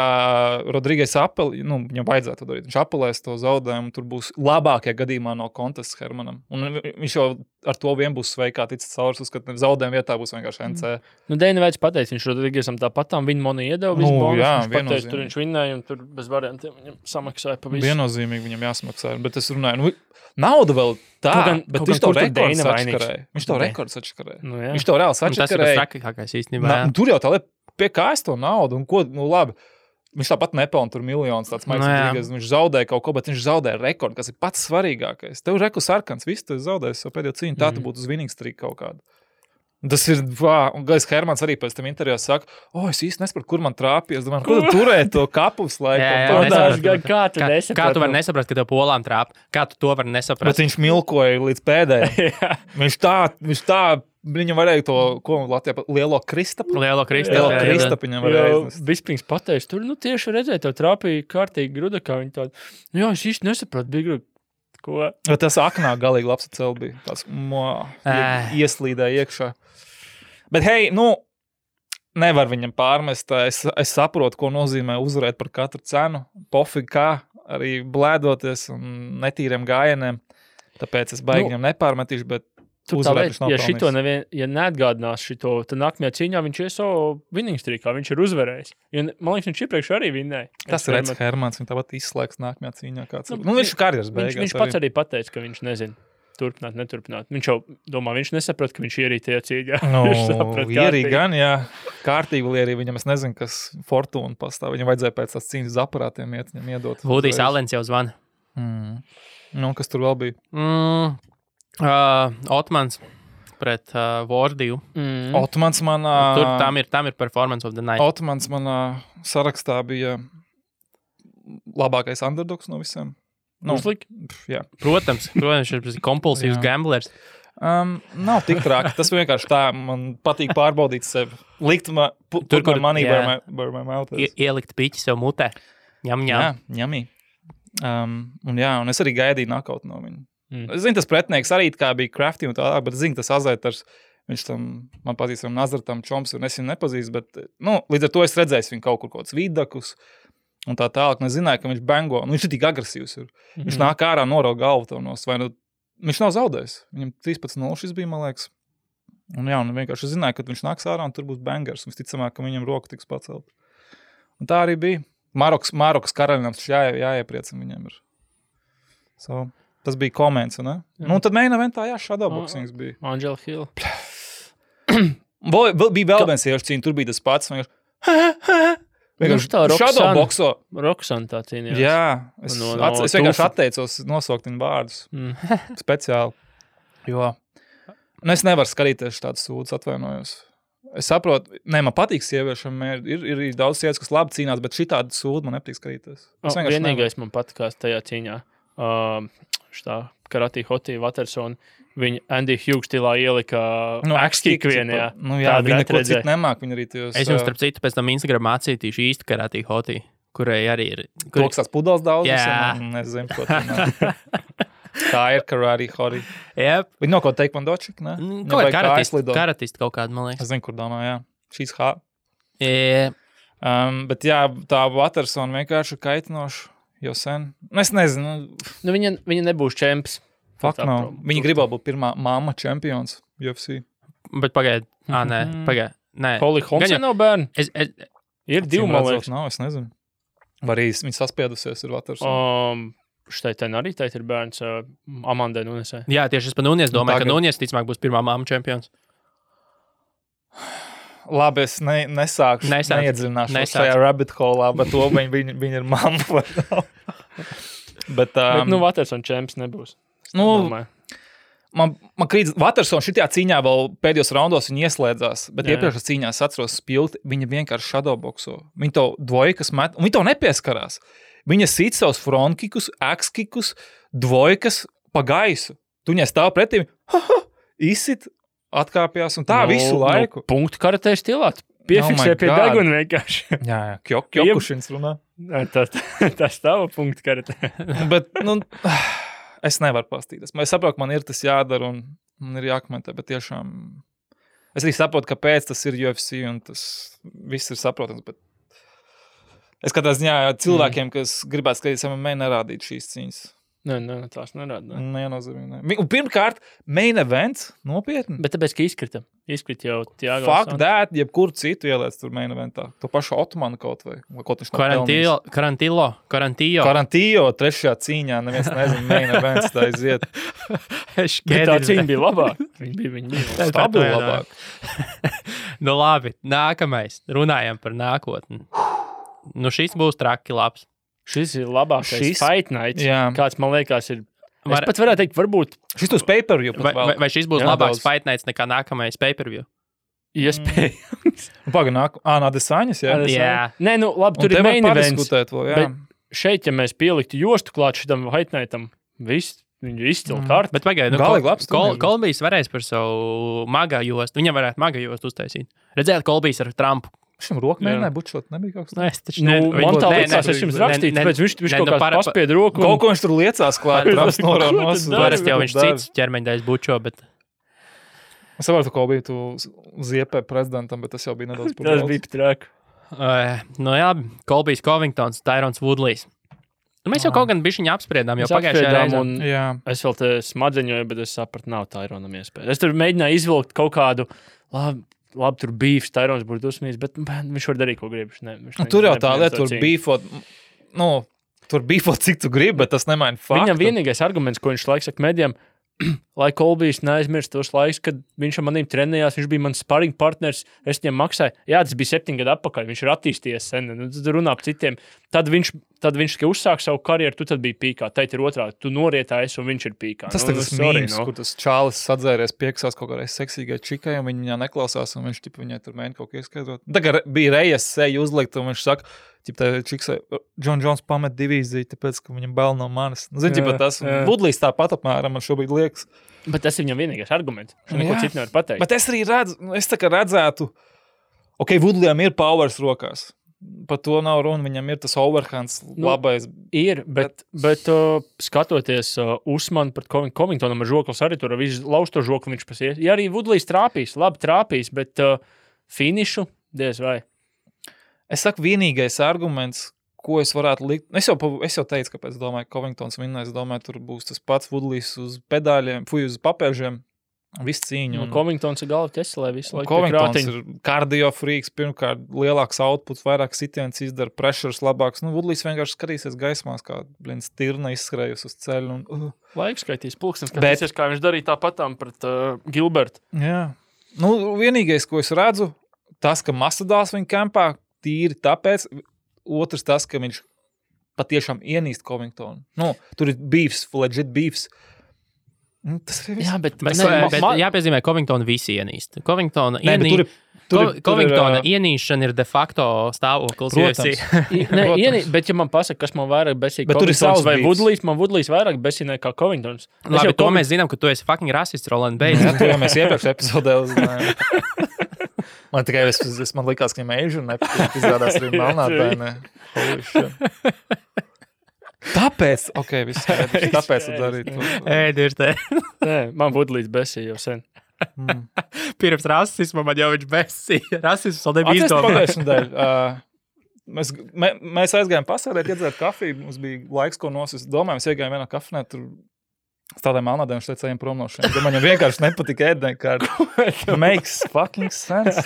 Rodriguez viņam vajadzētu to darīt. Viņš apelēs to zaudējumu, tur būs labākajā gadījumā no kontests Hermanam. Un viņš jau ar to vien būs sveikā ticis caurs, ka zaudējuma vietā būs vienkārši NC. Deina Veids pateica, viņš Rodriguezam tāpatām viņa money iedeva visu bonus. Viņš pateica, tur viņš vinnēja un tur bez variantiem viņam samaksāja pa visu. Viennozīmīgi viņam jāsamaksā, bet es runāju, nauda vēl tā, bet viņš to rekords atškarēja. Viņš to rekords atškarēja. Viņš to reāli atškarēja. Tas ir trakākais īstenībā. Tur jau tā lieta, pie kā es to naudu un ko, labi. Viņš tāpat nepelna tur miljonus, tāds maicīgais. Viņš zaudēja kaut ko, bet viņš zaudēja rekordu, kas ir pats svarīgākais. Tev reku sarkans, viss tu zaudēsi savu pēdējo cīņu, tā tu būtu uz winning streak kaut kādu. Tas ir, un Gais Hermans arī pēc tam intervijā saka, es īsti nesapratu, kur man trāpīja. Es domāju, kur tu turēji to kapus laiku? Kā tu vari nesaprast, ka tev polām trāp? Kā tu to vari nesaprast? Bet viņš milkoja līdz pēdējiem. viņš tā, viņam varēja to, ko Latvijā, lielo kristapu? Lielo kristapu viņam varēja iznest. Bispings pateica, tur, tieši redzēja, tev trāpīja kārtīgi gruda, kā viņi tādu. Es īsti nesapratu, bija gruda. Ko? Tas aknā galīgi labs cel bija. Tās ieslīdēja iekšā. Bet hei, nevar viņam pārmest. Es saprotu, ko nozīmē uzvarēt par katru cenu. Pofīgi kā, arī blēdoties un netīriem gājieniem. Tāpēc es baigi viņam nepārmetīšu, bet uzvarēt viņš nav pelnījis. Ja neatgādinās šito, tad nākamajā cīņā viņš ies savu winning streakā, viņš ir uzvarējis. Man liekas, viņš iepriekš arī vinnēja. Tas ir Reds Hermans, viņš tāpat izslēgs nākamajā cīņā. Viņš karjeras beigās. Viņš pats arī pateica, ka viņš nezina. Turpināt, neturpināt. Viņš jau domā, viņš nesaprot, ka viņš ierīja tajā cīņā. Ierīja gan, jā. Kārtīgi ierīja viņam, es nezinu, kas Fortuna pastāv. Viņam vajadzēja pēc tās cīņas aparātiem viņam iedot. Vudijs Allens jau zvana. Kas tur vēl bija? Otmans pret Vordiju. Otmans manā... Tur tam ir performance of the night. Otmans manā sarakstā bija labākais underdogs no visiem. Jā. Protams, viņš ir kompulsīvs gamblers. Nav tik traki. Tas vienkārši tā, man patīk pārbaudīt sevi. Likt tur, kur money where my mouth is. Ielikt piķi sev mutē. Ņem. Jā, ņemī. Un es arī gaidīju knockout no viņa. Es zinu, tas pretinieks arī kā bija Crafty un tālāk, bet es zinu, tas Azētars, viņš tam, man pazīstam Nazartam Čoms, un es viņu nepazīstu, bet, līdz ar to es redzēju viņu kaut kur kaut kāds vidakus, un tā tālāk, un es zināju, ka viņš bengo, viņš ir tik agresīvs. Viņš nāk ārā, norauga galvu tev nos, vai viņš nav zaudējis. Viņam 13-0 šis bija, man liekas. Un vienkārši zināju, ka viņš nāks ārā, un tur būs bangers, un visticamāk, ka viņam roka tiks pacelt. Un tā arī bija. Marokas karaļinams jāiepriecina viņiem ir. Tas bija koments, ne? Tad main eventā, shadowboxings bija. Angela Hill. Bija vēl viens iešu cīņa, tur bija tas pats. Shadowboxo. Roxanne tā cīnījās. Jā, es vienkārši atteicos nosaukt viņu vārdus. Speciāli. Jo. Es nevaru skatīties tādas sūdzes, atvainojos. Es saprotu, man patīk sieviešam, ir daudz sievietes, kas labi cīnās, bet šitādu sūdu man nepatīk skatīties. Vienīgais man patikās tajā cīņā. Karate Hotī Watersona, viņa Andy Hughes stilā ielika X-kick vienajā. Viņa neko citu nemāk, viņa arī tajos... Es jums, starp citu, pēc tam Instagram mācītīšu īstu Karate Hotī, kurai arī ir... Toks tās pudals daudz? Jā. Nezinu, ko tā tā ir Karate Hotī. Yep. Viņa no ko taekvondočik, ne? Karatisti kaut kādu, man liekas. Es zinu, kur domā, jā. Šīs hā. Yeah. Bet jā, tā Watersona vienkārši kaitinoši. Jau sen. Es nezinu. Viņa nebūs čemps. Viņa gribēja būt pirmā mamma čempions. UFC. Bet pagaid. Nē. Holly Holmsa nav bērni. Ir divi, man liekas. Nav, es nezinu. Vai arī viņa saspiedusies ir Vatersona. Štai arī teikt ir bērns Amandai Nunesai. Jā, tieši es par Nunes domāju, ka Nunes ticamāk būs pirmā māma čempions. Labi, es neiedziļināšu šajā rabbit holā, bet to viņa ir mamma. bet Vatersona čemps nebūs. Man krīt, Vatersona šitajā cīņā vēl pēdējos raundos viņa ieslēdzās, bet iepriekšējās cīņās atceros spilti, viņa vienkārši shadowboxo. Viņa to dvojkas met, un viņa to nepieskarās. Viņa sit savus frontkikus, axkikus, dvojkas pa gaisu. Tu viņai stāv pretī, izsit, atkāpjās, un tā visu laiku. Punktu karatē stilā. Piefiksē pie deguna vienkārši. Jā, Kjokušins runā. Tas tava punktu karatē. Bet, es nevaru pastīties. Es saprotu, man ir tas jādara un man ir jākomentē, bet tiešām es arī saprotu, kāpēc tas ir UFC un tas viss ir saprotams, bet es katrā ziņā cilvēkiem, kas gribētu skatīties MMA, nerādīt šīs cīņas. Nē, tās nerāda. Nenozīmē. Un pirmkārt, main events, nopietni. Bet tāpēc, ka izkrita jau Tiago. Fuck that, jebkuru citu ieliec tur main eventā. To pašu Otmanu kaut vai. Kaut viņš Karantillo, trešajā cīņā, neviens nezinu, main events tā iziet. Bet tā cīņa bija labāk. Viņa bija stabili labāk. Labi, nākamais. Runājam par nākotni. Šis būs traki labs. Šis ir labākais Fight Night. Jā. Kāds, man liekas, ir... Es pat varētu teikt, varbūt... Šis būs pay-per-view. Vai šis būs labāks Fight Nights nekā nākamais pay-per-view? Iespējams. Adesāņas, jā? Jā. Nē, labi, tur ir main events. Bet šeit, ja mēs pieliktu jostu klāt šitam Fight Nightam, viss... Viņu izcili kārtu. Bet pagaid, Kolbijs varēs par savu maga jostu. Viņam varētu maga jostu uztaisīt. Redzēt, Kolbijs ar Trumpu. Šim roku mēģināja bučot, nebija kaut kas tāds. Es taču man tā liekas, es jums rakstīju, tāpēc viņš kaut kāds paspied roku. Kaut ko viņš tur liecās klāt, Trumps noraunos. Parasti jau viņš cits ķermeņdaļas bučo, bet... Es saprotu, ko bija tu ziepē prezidentam, bet tas jau bija nedaudz par daudz. Tas bija trāk. Jā, Kolbijs Covingtons, Tyrons Woodleys. Mēs jau kaut gan bišķiņu apspriedām, jau pagājušajā reizē. Es vēl te smadzeņoju, bet es sapratu, nav Tyronam iespēja. Es tur mēģināju izvilkt kaut kādu, labi tur beefs, Tyrons būtu dusmīgs, bet viņš var darīt, ko grib. Tur jau tā lieta, tur beefot, tur beefot, cik tu gribi, bet tas nemaina faktu. Viņam vienīgais arguments, ko viņš laiks saka medijam, lai Kolbijs neaizmirst tos laiks, kad viņš ar manīm trenējās, viņš bija mans sparring partners, es viņam maksāju. Jā, tas bija 7 gadu atpakaļ, viņš ir attīstījies sen, tad runā par citiem. Tad viņš tikai uzsāk savu karjeru, tu tad biji pīkā. Teit ir otrādi, tu norietājis un viņš ir pīkā. Tas tas mīms, kur tas čālis sadzēries pieksās kaut kādai seksīgai čikai, un viņa neklausās, un viņš viņai tur mēģina kaut ko ieskaidrot. Tagad bija rejas seju uzlikt, un viņš saka, čiksai, John Jones pamet divīziju, tāpēc, ka viņam bail no manis. Zini, tas Woodleys tāpat apmēram man šobrīd liekas. Bet tas ir viņam vienīgais arguments. Viņš neko citu nevar pateikt. Bet es arī redzētu, Woodleyam ir powers rokās. Par to nav runa, viņam ir tas overhands labais. Ir, bet skatoties Usmanu pret Covingtonam ar žoklis arī tur visu lausto žokli viņš pasies. Ja arī Woodleys labi trāpīs, bet finišu diez vai. Es saku, vienīgais arguments, ko es varētu likt. Es jau teicu, kāpēc domāju, ka Covingtons vinnēs. Es domāju, tur būs tas pats Woodleys uz pedāļiem, uz papēžiem. Viss cīņu. Covingtons ir galva ķeselē visu laiku. Covingtons ir kardio freaks, pirmkārt lielāks outputs, vairāk sitiens izdara, pressures labāks. Woodleys vienkārši skatīsies gaismās, kā stirna izskrējusi uz ceļu. Laiks skaitīs pulkstens, skatīsies, kā viņš darīja tāpatām pret Gilbertu. Jā. Vienīgais, ko es redzu, tas, ka Masvidals viņa kampā tīri tāpēc, otrs tas, ka viņš patiešām ienīst Covingtonu. Tur ir beefs, legit beefs. Tas ir viss. Jā, bet jāpiezīmē, Covingtonu visi ienīst. Covingtona ienīšana ir de facto stāvoklis. Bet ja man pasaka, kas man vairāk besīja Covingtons vai Woodleys, man Woodleys vairāk besīja nekā Covingtons. Labi, to mēs zinām, ka tu esi fucking rasists, Roland Bates. To jau mēs iepriekš epizodē uzzinājām. Man tikai man likās, ka viņam Asian nepatīk, izrādās arī melnādainē. Tāpēc, viss skaidrs, tāpēc tu darītu. Ir te. Nē, man Woodleys besīja jau sen. Pirms rasisma man jau viņš besīja. Rasisms vēl nebija izdomāts. Mēs aizgājām pasēdēt, iedzēt kafiju, mums bija laiks, ko nosist. Domāju, mēs iegājām vienā kafnē, tur Tādiem melnādiem šeit ejam prom no šiem. Viņam vienkārši nepatika ēdnēkārt. Makes fucking sense.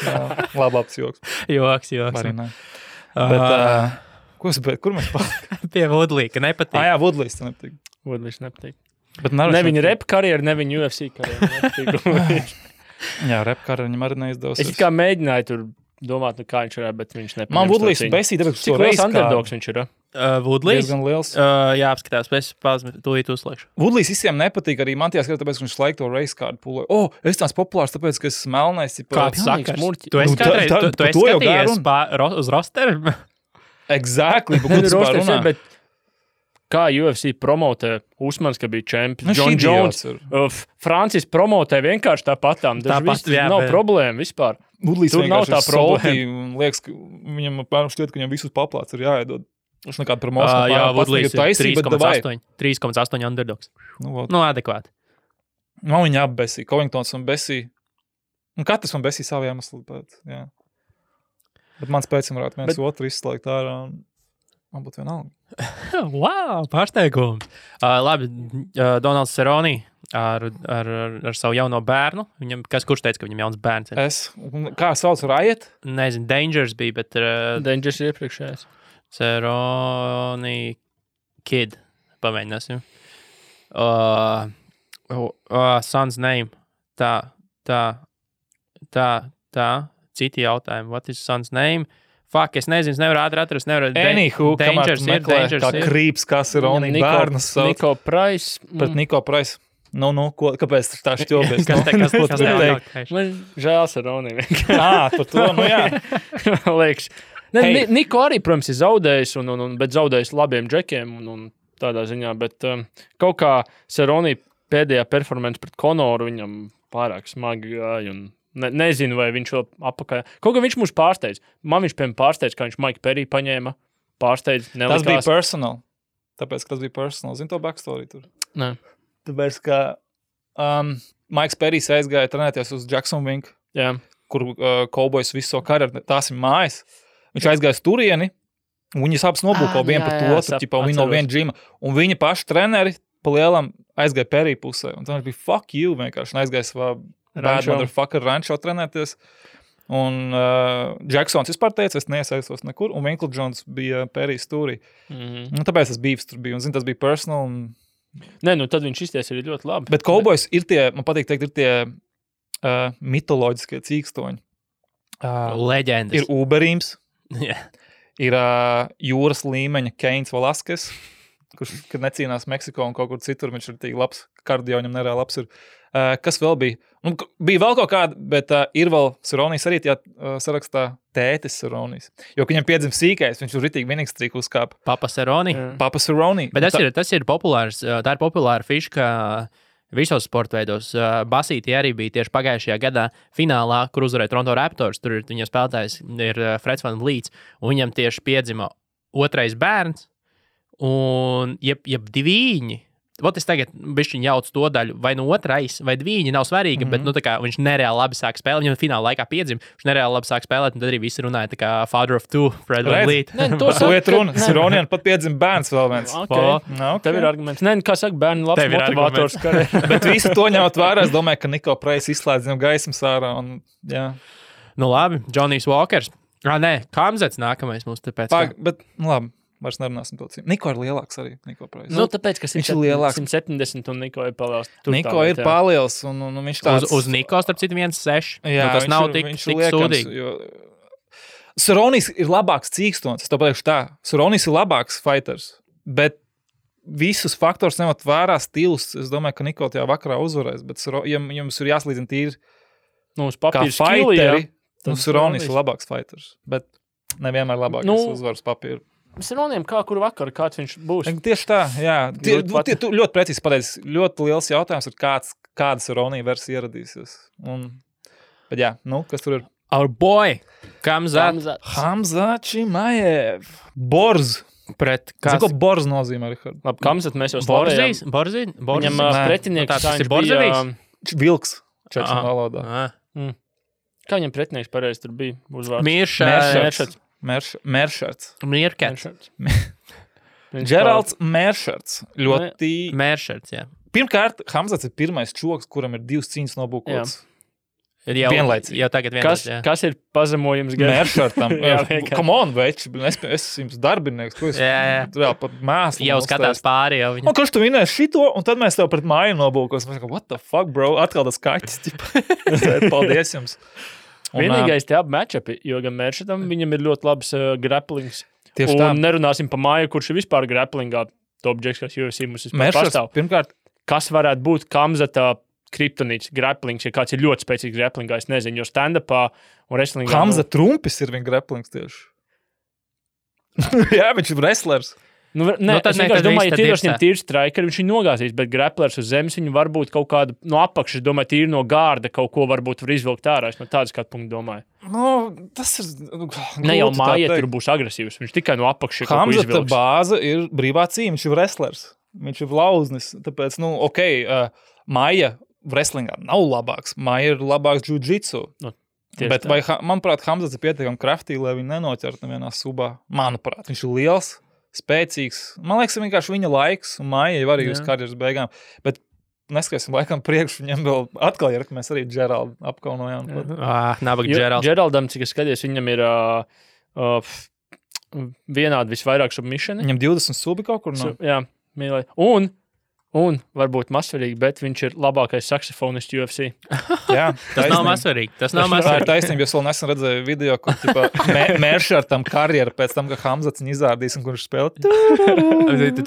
Labāks joks. Joks. Arī ne. Bet, kur mēs pārāk? Pie Woodley, ka nepatīk. Jā, Woodleys te nepatīk. Woodleys nepatīk. Bet ne viņa rap karjeru, ne viņa UFC karjeru. Jā, rap karjeru viņam arī neizdevusies. Es kā mēģināju tur domāt, kā viņš ir, bet viņš nepatīk. Man Woodleys besīja, tāpēc, cik liels underdogs viņš ir? Woodleys? Diezgan liels. Jā, apskatās, es tūlīt uzslēgšu. Woodleys visiem nepatīk, arī man tajā skatā, tāpēc, ka viņš laiku to race card pulē. Es tās populārs, tāpēc, ka es esmu melnais. Kāds sakars? Tu esi skatījies uz rosteru? Exactly, bet kur tas pār runā? Bet kā UFC promotē Usmans, ka bija čempions, John Jones, Francis promotē vienkārši tāpatām. Nav problēma vispār. Woodleys tur nav tā problēma. Liekas, ka viņam šķiet, ka viņam visus paplāts ir jāiedod. Viņš nekāda promocija. Jā, Woodleys ir 3,8 underdogs. Nu, adekvāti. Man viņa apbesīja. Covingtons un besīja. Un katrs man besīja savu iemeslu pēc. Jā. Bet mans pēcim varētu viens otru izslēgt ārā. Man būtu vienalga. Wow, pārsteigums. Labi, Donalds Cerrone ar savu jauno bērnu. Kurš teica, ka viņam jauns bērns ir? Kā sauc Riot? Nezinu, Dangers bija, bet... Dangers ir iepriekšējais. Cerrone Kid. Pamēģināsim. Son's name. Tā. Citi jautājumi. What is son's name? Fuck, es nezinu, es nevaru atrast. Anywho, Dangers ir. Kā krīps, kā Cerrone bērnus sauc. Niko Price. Pret Niko Price. Kāpēc tā šķobies? Kas teikt? Man žēl Cerrone. Par to, jā. Liekas. Niko arī, protams, ir zaudējis, bet zaudējis labiem džekiem un tādā ziņā, bet kaut kā Cerrone pēdējā performance pret Conoru viņam pārāk smagi gāja un nezinu, vai viņš vēl apakaļ. Kaut kā viņš mūs pārsteidz. Man viņš, piemēram, pārsteidz, kā viņš Mike Perry paņēma. Pārsteidz, nelikās. Tas bija personal. Tāpēc, ka tas bija personal. Zini to backstory tur? Nē. Tāpēc, ka Mikes Perrys aizgāja trenēties uz Jacksonville, kur Cowboys visu savu karjeru, tās ir mājas. Viņš aizgāja uz turieni, un viņas abas nobūko vienu pret otru, viņi no viena džima. Un viņa paši treneri pa lielam aizgāja Perry pusē. Un tā bija fuck you vienkārši. Un aizgāja savā bad motherfucker rančo trenēties. Un Jacksons vispār teica, es neiesaistos nekur. Un Winkle Jones bija Perrys stūrī. Un tāpēc tas beefs tur bija. Un zin, tas bija personal. Nē, tad viņš izties arī ļoti labi. Bet Cowboys ir tie, man patīk teikt, ir tie mitoloģiskie cīkstoņi. Leģendas. Ir Uberīms. Yeah. Ir jūras līmeņa Keins Valaskes, kurš, kad necīnās Meksiko un kaut kur citur, viņš ir tik labs, kardio viņam nereāli labs ir. Kas vēl bija? Bija vēl kaut kāda, bet ir vēl Cerronis arī tajā sarakstā tētis Cerronis. Jo, viņam piedzim sīkais, viņš ir ritīgi vienīgs trīk uzkāpa. Papa Cerrone. Papa Cerrone. Bet tas ir populārs, tā ir populāra fiška visos sporta veidos. Basītī arī bija tieši pagājušajā gadā finālā, kur uzvarēja Toronto Raptors. Tur viņa spēlētājs ir Freds Van Vliets, un viņam tieši piedzima otrais bērns, un jeb diviņi. Vot es tagad bišķiņ jaucu to daļu, vai no otrais, vai diviņi nav svarīgi, bet tā kā viņš nereāli labi sāk spēlēt, viņam fināla laikā piedzima, viņš nereāli labi sāk spēlēt, un tad arī visi runāja tā kā father of two, Fred Van Vliet. To iet runa. Cerronian pat piedzima bērns vēl viens. Okay. Tev ir arguments. Nē, kā saka, bērni labs motivators karē. Bet visu to ņemot vērā, es domāju, ka Niko Price izslēdz viņam gaismas ārā, un jā. Nu labi, Johnny's Walkers. Nē, Kamzets nākamais mums tāpēc. Bet, labi. Vairs nerunāsim to cīm. Niko ir lielāks arī, Niko Price. Tāpēc, ka viņš ir lielāks. 170 un Niko ir paliels. Niko ir paliels un viņš tāds... Uz Niko, starp citu, 1,6. Jā, tas nav tik sūdīgi. Cerronis ir labāks cīkstons, es to pateikšu tā. Cerronis ir labāks fighters, bet visus faktors nemat vērā stils. Es domāju, ka Niko tajā vakarā uzvarēs, bet jums ir jāslīdzina tīri kā fighteri. Cerronis ir labāks fighters, bet nevienmēr labāks uzvaras papīru. Cerroniem kā kuru vakaru, kāds viņš būs? Tieši tā, jā. Tu ļoti precīzi pateici. Ļoti liels jautājums ir, kāda Cerrone versija ieradīsies. Bet jā, kas tur ir? Our boy, Kamzat. Hamza Chimaev. Borz. Zinu, ko Borz nozīmē, Richard? Labi, Kamzat mēs jau slavējām. Borzī? Viņam pretinieks, tas ir Borzavīs? Vilks. Čeču valodā. Kā viņam pretinieks pareizi tur bija uzvārds? Miršats. Mēršards. Mirkets. Geralds Mēršards. Ļoti... Mēršards, jā. Pirmkārt, Hamzats ir pirmais čoks, kuram ir 2 cīņas nobūkots. Vienlaicīgi. Jau tagad vienlaicīgi. Kas ir pazemojums? Mēršartam. Come on, veči, es jums darbinieks, ko es vēl pat mēslu. Jau skatās pāri jau viņam. Kurš tu vinēs šito, un tad mēs tev pret māju nobūkos. Mēs kā, what the fuck, bro? Atkal tas kaķis. Paldies jums. Vienīgais tie abi matchupi, jo gan Mēršartam viņam ir ļoti labs grapplings. Tieši un tā. Nerunāsim par māju, kurš ir vispār grapplingā top džeks, kas UFC mums vispār pastāv. Pirmkārt, kas varētu būt Kamzata kriptonīts, grapplings, ja kāds ir ļoti spēcīgs grapplingā, es nezinu, jo stand-upā un wrestlingā... Hamza Trumpis ir viņa grapplings tieši. Jā, viņš ir wrestlers. Es vienkārši domāju, ja tīros viņam tīri strikeri, viņš viņu nogāzīs, bet grapplers uz zemes viņu varbūt kaut kādu no apakšas, domāju, tīri no gārda kaut ko varbūt var izvilkt ārā. Es no tādas skatu punktu domāju. Tas ir... Ne jau māja tur būs agresīvs, viņš tikai no apakšas kaut ko izvilks. Hamzata bāze ir brīvā cīņa, viņš ir wrestlers. Viņš ir lauznis, tāpēc, māja wrestlingā nav labāks. Māja ir labāks jiu-jitsu. Bet vai, manuprāt, Hamzats ir pietiekami kraftīgi, lai viņu nenoķert nevienā subā? Manuprāt, viņš ir liels, spēcīgs. Man liekas, vienkārši viņa laiks, un Māja jau arī uz karjeras beigām. Bet neskatīsim laikam priekš, viņam vēl atkal ir, ka mēs arī Džeraldu apkaunojām. Nabaga Džeralds. Džeraldam, cik es skaties, viņam ir vienādi visvairāk submissioni. Viņam 20 subi kaut kur nav? Jā, mīlēji. Un varbūt mazsvarīgi, bet viņš ir labākais saksofonists UFC. Jā, tas nav mazsvarīgi. Tas nav mazsvarīgi. Tā ir mazsvarīgi. taisnība, jo es vēl nesen redzēju video, kur Mēršartam karjera pēc tam, ka Hamzats viņu izrādīs un kurš spēlē.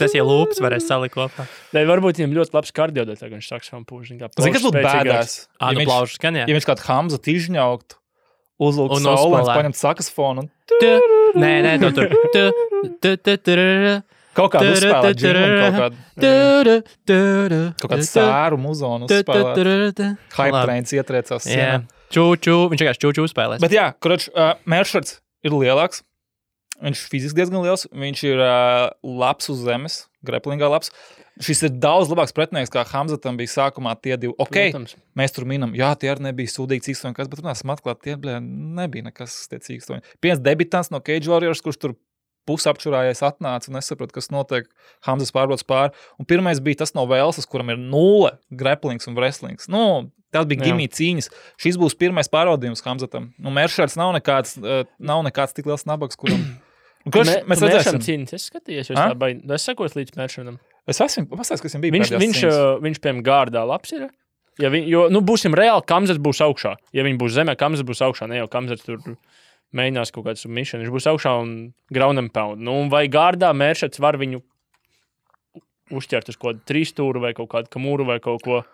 Tas jau lūpas varēs salikt kopā. Lai varbūt viņam ļoti labs kardio, tā kā viņš saksofonu pūž. Zini, kas būtu bēdās? Plaušas skan, jā. Ja viņš kādu Hamzatu izņaukt, uzlūkt saulēns, paņemt saksofonu un... Nē, tur. Kaut kādu uzspēlēt džingu, kaut kādu sēru muzonu uzspēlēt. Hype trains ietriecās sienā. Čū, viņš vienkārši čū spēlēs. Bet jā, Mēršards ir lielāks. Viņš fiziski diezgan liels. Viņš ir labs uz zemes, graplingā labs. Šis ir daudz labāks pretinieks, kā Hamzatam bija sākumā tie 2. Protams. Mēs tur minam, jā, tie arī nebija sūdīgi cīkstoņi, bet runāsim atklāt, tie nebija nekas tie cīkstoņi. Piens debitants no Cage Warriors, kurš tur pusapčurājies atnāca un nesaprot, kas notiek. Hamzas pārbrauc pāri. Un pirmais bija tas no Velsas, kuram ir 0 grapplings un wrestlings. Tas bija gimī cīņas. Šis būs pirmais pārbaudījums Hamzatam. Mēršards nav nekāds tik liels nabaks, kuram... Mēs redzēsim cīņas. Es skatījos, es sekos līdz Mēršardam. Es esmu pastāstījis, kas viņam bija pēdējās cīņas. Viņš piemēram gārdā labs ir. Būsim reāli, Kamzats būs augšā. Ja viņi būs zemē, Kamzats būs augšā. Ne jau Kamzats tur... mēģinās kaut kādu submission, viņš būs augšā un ground and pound. Vai gārdā Mēršards var viņu uzķert uz kaut kādu 3 stūru vai kaut kādu kamūru vai kaut ko?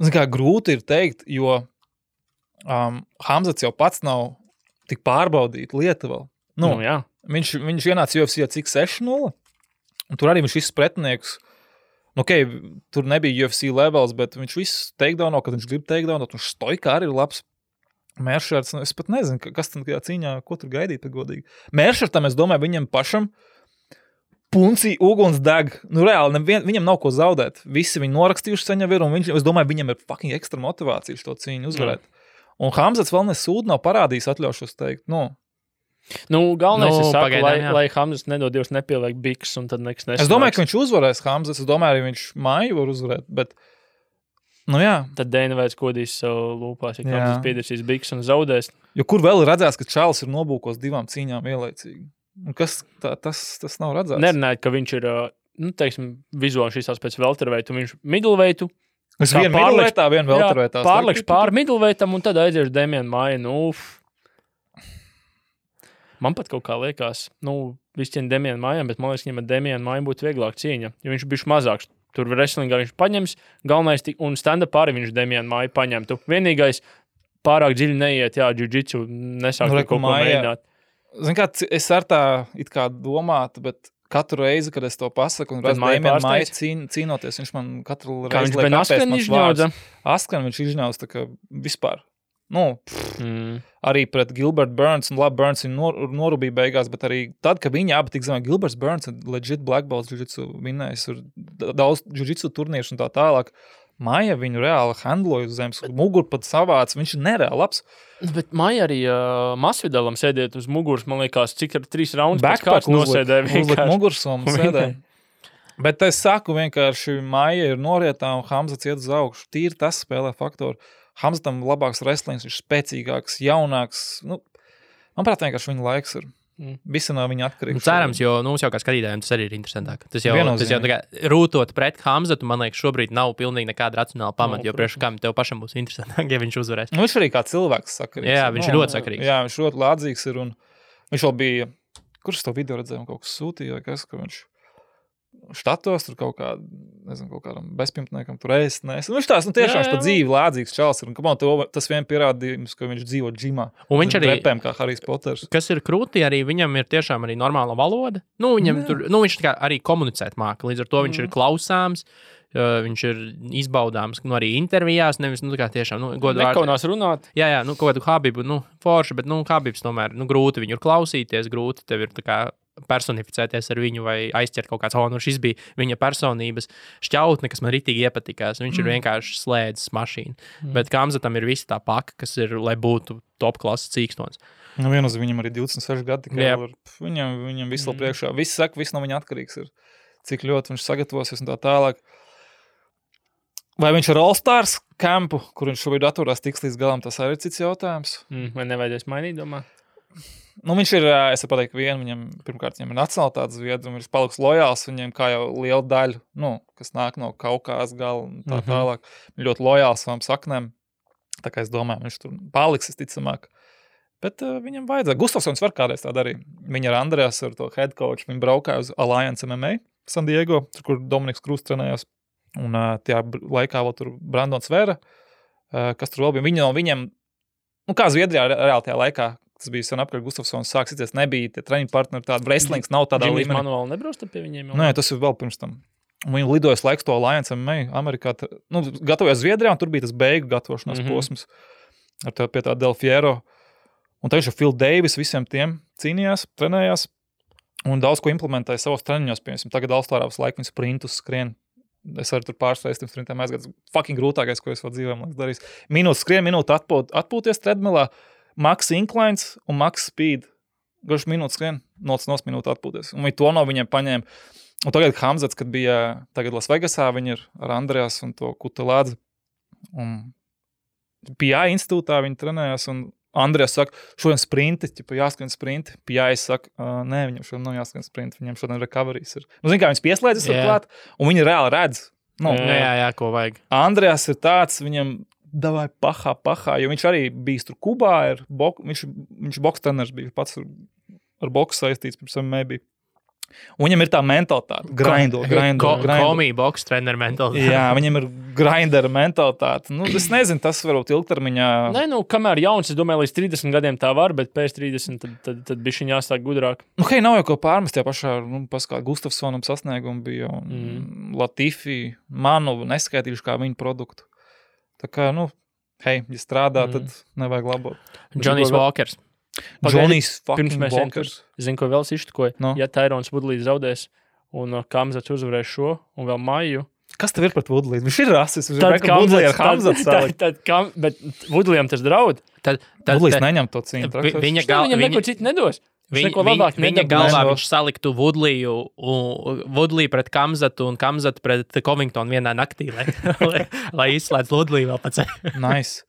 Grūti ir teikt, jo Hamzats jau pats nav tik pārbaudīt lietu vēl. Jā. Viņš ienāca UFC cik 6-0, un tur arī viņš visus pretinieks, tur nebija UFC levels, bet viņš visus takedownot, kad viņš grib takedownot, un stoikā arī ir labs. Mēršards, es pat nezinu, kas tam cīņā, ko tur gaidīt, godīgi. Mēršartam, es domāju, viņam pašam puncī uguns deg. Reāli, viņam nav ko zaudēt. Visi viņi norakstījuši saņem ir, un es domāju, viņam ir fucking ekstra motivācija šo cīņu uzvarēt. Un Hamzats vēl nesūd nav parādījis, atļaušos teikt. Galvenais ir saka, lai Hamzats nedod Dievs nepieliek biks, un tad nekas nesanāks. Es domāju, ka viņš uzvarēs Hamzats, es domāju, arī viņš māju var uzvarēt, bet... jā. Tad Dana vairs kodīs savu lūpās, ja Hamzats piedēsīs biks un zaudēs. Jo kur vēl ir redzēts, ka Čāls ir nobūkos 2 cīņām vienlaicīgi? Un kas tas nav redzēts? Nerunājot, ka viņš ir, vizuāli šīs pēc welterweightu, viņš middleweightu. Es vienu middleweightā, vienu welterweightā. Pārlekš pār middleweightam un tad aiziešu Damienu Māju. Man pat kaut kā liekas, visi cien Damienu Mājām, bet man liekas, viņam ar Damienu Māju būtu vieglāk cīņa, jo viņš bišķi mazāks. Tur wrestlingā viņš paņems, galvenais un stand-up arī viņš Damienu Māju paņemtu. Vienīgais pārāk dziļi neiet, jiu-jitsu nesāk kaut ko mēģināt. Es ar tā it kā domātu, bet katru reizi, kad es to pasaku un redzu Damienu Māju cīnoties, viņš man katru reizi liek apēst mans vārds. Askan viņš izņauts tā kā vispār. Arī pret Gilbert Burns, un labi, Burns viņu norubīja beigās, bet arī tad, kad viņi abi tik zemē, Gilberts Burns ir legit black belts jiu-jitsu vinnējis, ir daudz jiu-jitsu turnīršu un tā tālāk. Māja viņu reāli handloja uz zemes, mugur pat savāc, viņš ir nereāli labs. Bet Māja arī Masvidalam sēdiet uz muguras, man liekas, cik ar 3 raundus pēc kāds nosēdē. Uzliek muguras un sēdē. Bet es saku vienkārši, Maija ir norietā un Hamzats iet uz augšu. Tīri tas spēlē faktoru. Hamzatam labāks wrestlings, viņš spēcīgāks, jaunāks. Nu, manuprāt, vienkārši viņa laiks ir. Visi no viņa atkarīgs. Cerams, jo mums jau kā skatītājiem tas arī ir interesantāk. Tas jau tā kā rūtot pret Hamzatu, man liekas, šobrīd nav pilnīgi nekāda racionāla pamata, jo priekš kam tev pašam būs interesantāk, ja viņš uzvarēs. Nu, viņš arī kā cilvēks sakarīgs. Jā, viņš ir ļoti sakarīgs. Jā, viņš ļoti lādzīgs ir un viņš vēl bija, kurš to video redzēja, kaut kas sūtīja vai kas, ka viņš štatos tur kaut kā, nezinu, kaut kādam bezpimtniekam tur ēst, nes. Viņš tās, tiešām viņš pa dzīvi lādzīgs čals ir. Un tas vien pierādījums, ka viņš dzīvo džimā. Un viņš arī, repēm, kā Harijs Poters. Kas ir krūti, arī viņam ir tiešām arī normāla valoda. Nu, viņam tur, viņš tā kā arī komunicēt māka, līdz ar to viņš ir klausāms, viņš ir izbaudāms, arī intervijās, nevis, tā kā tiešām, nekaunās runāt. Jā, kaut kādu Habibu, forši, bet, Habibs tomēr, grūti viņu ir klausīties, grūti tev ir tā kā personificēties ar viņu vai aizķert kaut kāds, šis bija viņa personības šķautne, kas man ritīgi iepatikās. Viņš ir vienkārši slēdzis mašīnu. Bet Hamzatam ir visa tā paka, kas ir, lai būtu top klases cīkstons. Nu, vienos viņam arī 26 gadi, viņam visu priekšā. Viss saka, viss no viņa atkarīgs ir. Cik ļoti viņš sagatavosies un tā tālāk. Vai viņš ir All-Stars kampu, kur viņš šobrīd atturās tiks līdz galam, tas arī ir cits jautājums. Vai nevajadzēs mainīt, domā? Nu, viņš ir, es pateiktu, viņam ir nacionalitātes zviedri, un viņš paliks lojāls viņiem, kā jau liela daļa, kas nāk no Kaukās gala un tā tālāk. Viņš ļoti lojāls savām saknēm, tā kā es domāju, viņš tur paliks, es ticamāk. Bet viņam vajadzēja. Gustafsons var kādreiz tā darīt. Viņa ar Andreas, ar to head coach, viņi braukāja uz Alliance MMA San Diego, kur Dominiks Krūs trenējās. Un tajā laikā vēl tur Brandons Vera, kas tur vēl bija. Viņa no viņiem, kā Zviedrijā reāli tajā laikā, tas bija sen apkārt Gustafsons sāks, nebija tie treniņu partneri, tāda wrestlings nav tādā līmenī. Džimis manuāli nebrausta pie viņiem? Nē, tas ir vēl pirms tam. Un viņi lidojas laiks to Alliance MMA Amerikā, gatavojās Zviedrijā, un tur bija tas beigu gatavošanās posms pie tā Del Fiero. Un tā viņš ar Phil Davis visiem tiem cīnījās, trenējās, un daudz ko implementēja savos treniņos, piemēram, tagad All-Starā visu laiku viņi sprintus skrien. Es arī tur pārsteigts tiem sprintiem aizgāds. Fucking grūtākais, ko es vēl dzīvēm darīs. Minūtes skrien, minūte atpūties treadmillā, max inclines un max speed. Garš minūtes skrien, noc minūte atpūties. Un viņi to no viņiem paņēma. Un tagad Hamzats, kad bija tagad Las Vegasā, viņi ir ar Andreas un to Kutelādzi. Un PI institūtā viņi trenējās un Andrejas saka, šodien sprinti, jāskrien sprinti. PI saka, nē, viņam šodien nav jāskrien sprinti, viņam šodien recoveries ir. Zin kā, viņas pieslēdzas ar klāt, un viņi reāli redz. Jā, ko vajag. Andrejas ir tāds, viņam davai pahā, jo viņš arī bijis tur Kubā, viņš boks treneris bija, pats ar boksu saistīts, pirms MMA bija. Un viņam ir tā mentalitāte, grindo. Komī boks treneru mentalitāte. Jā, viņam ir grindera mentalitāte. Es nezinu, tas varbūt ilgtermiņā. Nē, kamēr jauns, es domāju, līdz 30 gadiem tā var, bet pēc 30 tad bišķiņ jāstāk gudrāk. Nav jau ko pārmest, jā pašā, paskā Gustafsonam sasniegumi bija, un Latifi, manu neskaitījuši kā viņu produktu. Tā kā, ja strādā, tad nevajag labot. Johnny's Walkers. Johnny's fucking Walkers. Zinu, ko vēl sištkoja. Ja Tyrons Woodley zaudēs un Hamzats uzvarēs šo un vēl Maiju. Kas tev ir pret Woodley? Viņš ir rasis. Woodley ar Hamzats salikt. Bet Woodleyam tas draud. Woodleys neņem to cīņu. Viņam neko citu nedos. Viņa galvā viņš saliktu Woodley pret Hamzatu un Hamzatu pret Covingtonu vienā naktī, lai izslēdz Woodley vēl pats. Nice.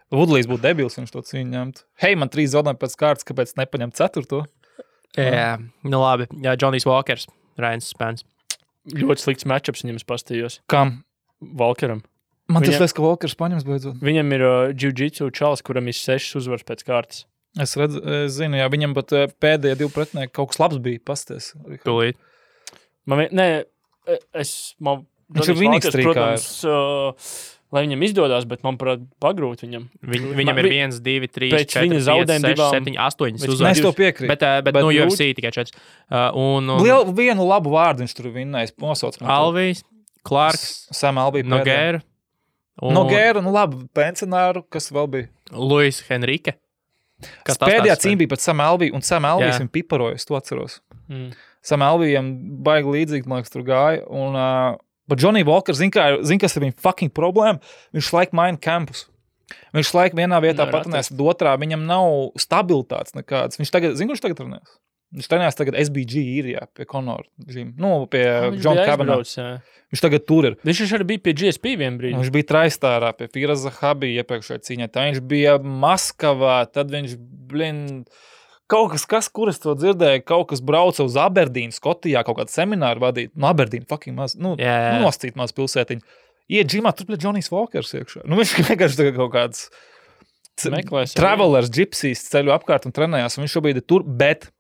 Woodleys būtu debils, viņš to cīņu ņemtu. Hei, man 3 zaudējumi pēc kārtas, kāpēc nepaņem 4. Jā, labi. Jā, Johnny's Walkers, Ryans Spence. Ļoti slikts matchups viņam pastījos. Kam? Walkeram. Man tas liekas, ka Walkers paņems beidzot. Viņam ir jiu-jitsu čalis, kuram ir 6 uzvaras pēc kārtas. Es zinu, jā, viņam pat pēdējie 2 pretinieki kaut kas labs bija pasties. Tūlīt. Viņš ir vienīgs strīkā. Lai viņam izdodās, bet man pagrūt viņam. Viņam ir 1, 2, 3, 4, 5, 6, 7, 8 uzvaras. Mēs to piekrīt. Bet UFC tikai 4. Vienu labu vārdu viņš tur vinnējis. Alvijs, Clarks, Sam Alvī Nogueira. Nogueira, labi, pensionāru, kas vēl bija? Luis Henrique. Pēdējā cīņa bija pat Sam Alvī, un Sam Alvijs viņu piparojas, to atceros. Sam Alvijam baigi līdzīgi, man liekas, tur gāja, un bet Johnny Walker, zin, kas ir viņa fucking problēma? Viņš laik maina campus. Viņš laik vienā vietā patunēs, bet otrā viņam nav stabilitātes nekādas. Viņš tagad, zin, kurš tagad runās? Viņš trenējās tagad SBG īrijā pie Conor Gym. Pie John Kavanagh. Viņš tagad tur ir. Viņš arī bija pie GSP vien brīdi. Viņš bija Traistārā pie Firas Zahabi iepriekšējā cīņā. Tā viņš bija Maskavā, tad viņš, kaut kas, kur es to dzirdēju, kaut kas brauca uz Aberdīnu, Skotijā, kaut kādu semināru vadīt. Aberdīnu, fucking maz, nostīt maz pilsētiņu. Iet džimā, tur pie Johnny's Walkers iekšā. Viņš vienkārši tagad kaut kāds travelers, gypsies ceļu apkārt un trenējās, un viņš šobrīd ir tur, bet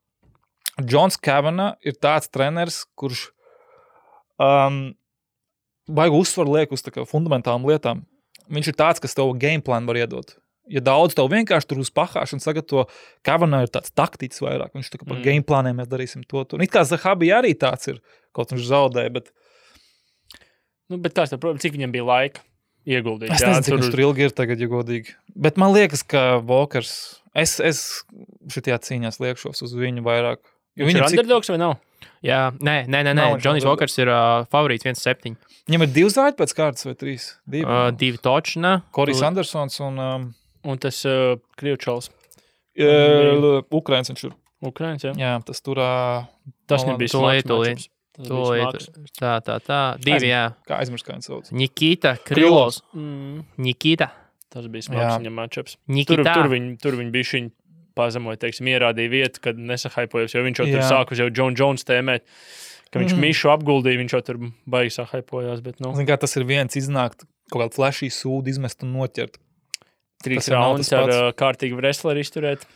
Johns Kavanagh ir tāds treneris, kurš baigu uzsvaru liek uz tā kā fundamentālām lietām. Viņš ir tāds, kas tev game plan var iedot. Ja daudz tev vienkārši tur uz pahāšanu sagatavo, Kavanagh ir tāds taktiķis vairāk. Viņš tā kā par game planiem mēs darīsim to. It kā Zahabi arī tāds ir, kaut viņš zaudēja, bet... Bet kāds tā, protams, cik viņam bija laika ieguldīt? Es nezinu, cik viņš tur ilgi ir tagad, ja godīgi. Bet man liekas, ka Walkers... Es šitajā cīņās liekšos uz viņu vairāk. Viņš ir underdogs vai nav? Jā, nē. Johnny's Walkers ir favorīts 1-7. Viņam ir 2 zāļi pēc kārtas vai 3? 2 točna. Korijs Andersons un... Un tas Krievčals. Ukraiņas viņš ir. Ukraiņas, jā. Jā, tas tur... Tas nebija smags. Tā. 2, jā. Kā aizmirst, kā viņš sauc? Nikita Krilovs. Nikita. Tas bija smags viņam matchups. Nikita. Tur viņi bija šiņi pazemoja, teiksim, ierādīja vietu, kad nesahaipojas, jo viņš jau tur sākus jau John Jones tēmēt, ka viņš Mišu apguldīja, viņš jau tur baigi sahaipojās, bet Zin kā tas ir viens iznākt, kaut kādu flashī sūdu izmest un noķert. 3 raundus ar kārtīgu wrestleri izturēt.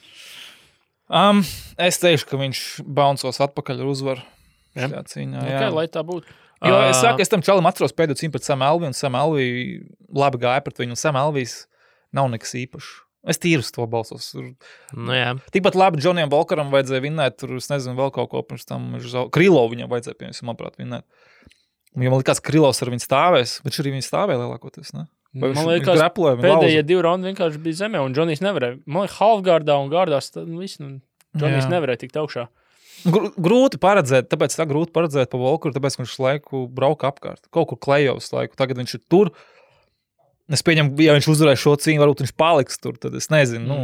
Es teikšu, ka viņš bouncos atpakaļ ar uzvaru. Jā. Cīņā, jā. Lai tā būtu. Jo es saku, es tam čalim atceros pēdējo cīņu pret Sam Alvey, un Sam Alvey labi gāja pret viņu, un Sam Alvejs nav nekas īpašs. Es tīru uz to balsos. Jā. Tikpat labi Johnnyam Walkeram vajadzēja vinnēt, tur es nezinu vēl kaut ko pirms tam. Krilovu viņam vajadzēja, piemēram, manuprāt, vinnēt. Ja man likās, ka Krilovs ar viņu stāvēs, bet arī viņi stāvēja lielākoties, ne? Man liekas, pēdējie 2 raundi vienkārši bija zemē, un Johnny's nevarēja. Man liekas, halfgārdā un gārdās, Johnny's nevarēja tikt augšā. Grūti paredzēt, tāpēc tā grūti paredzēt pa Walkeru, tāpēc viņš laiku brauka apkārt. Kaut kur klejovs laiku, tagad viņš ir tur. Es pieņemu, ja viņš uzvarēja šo cīņu, varbūt viņš paliks tur, tad es nezinu.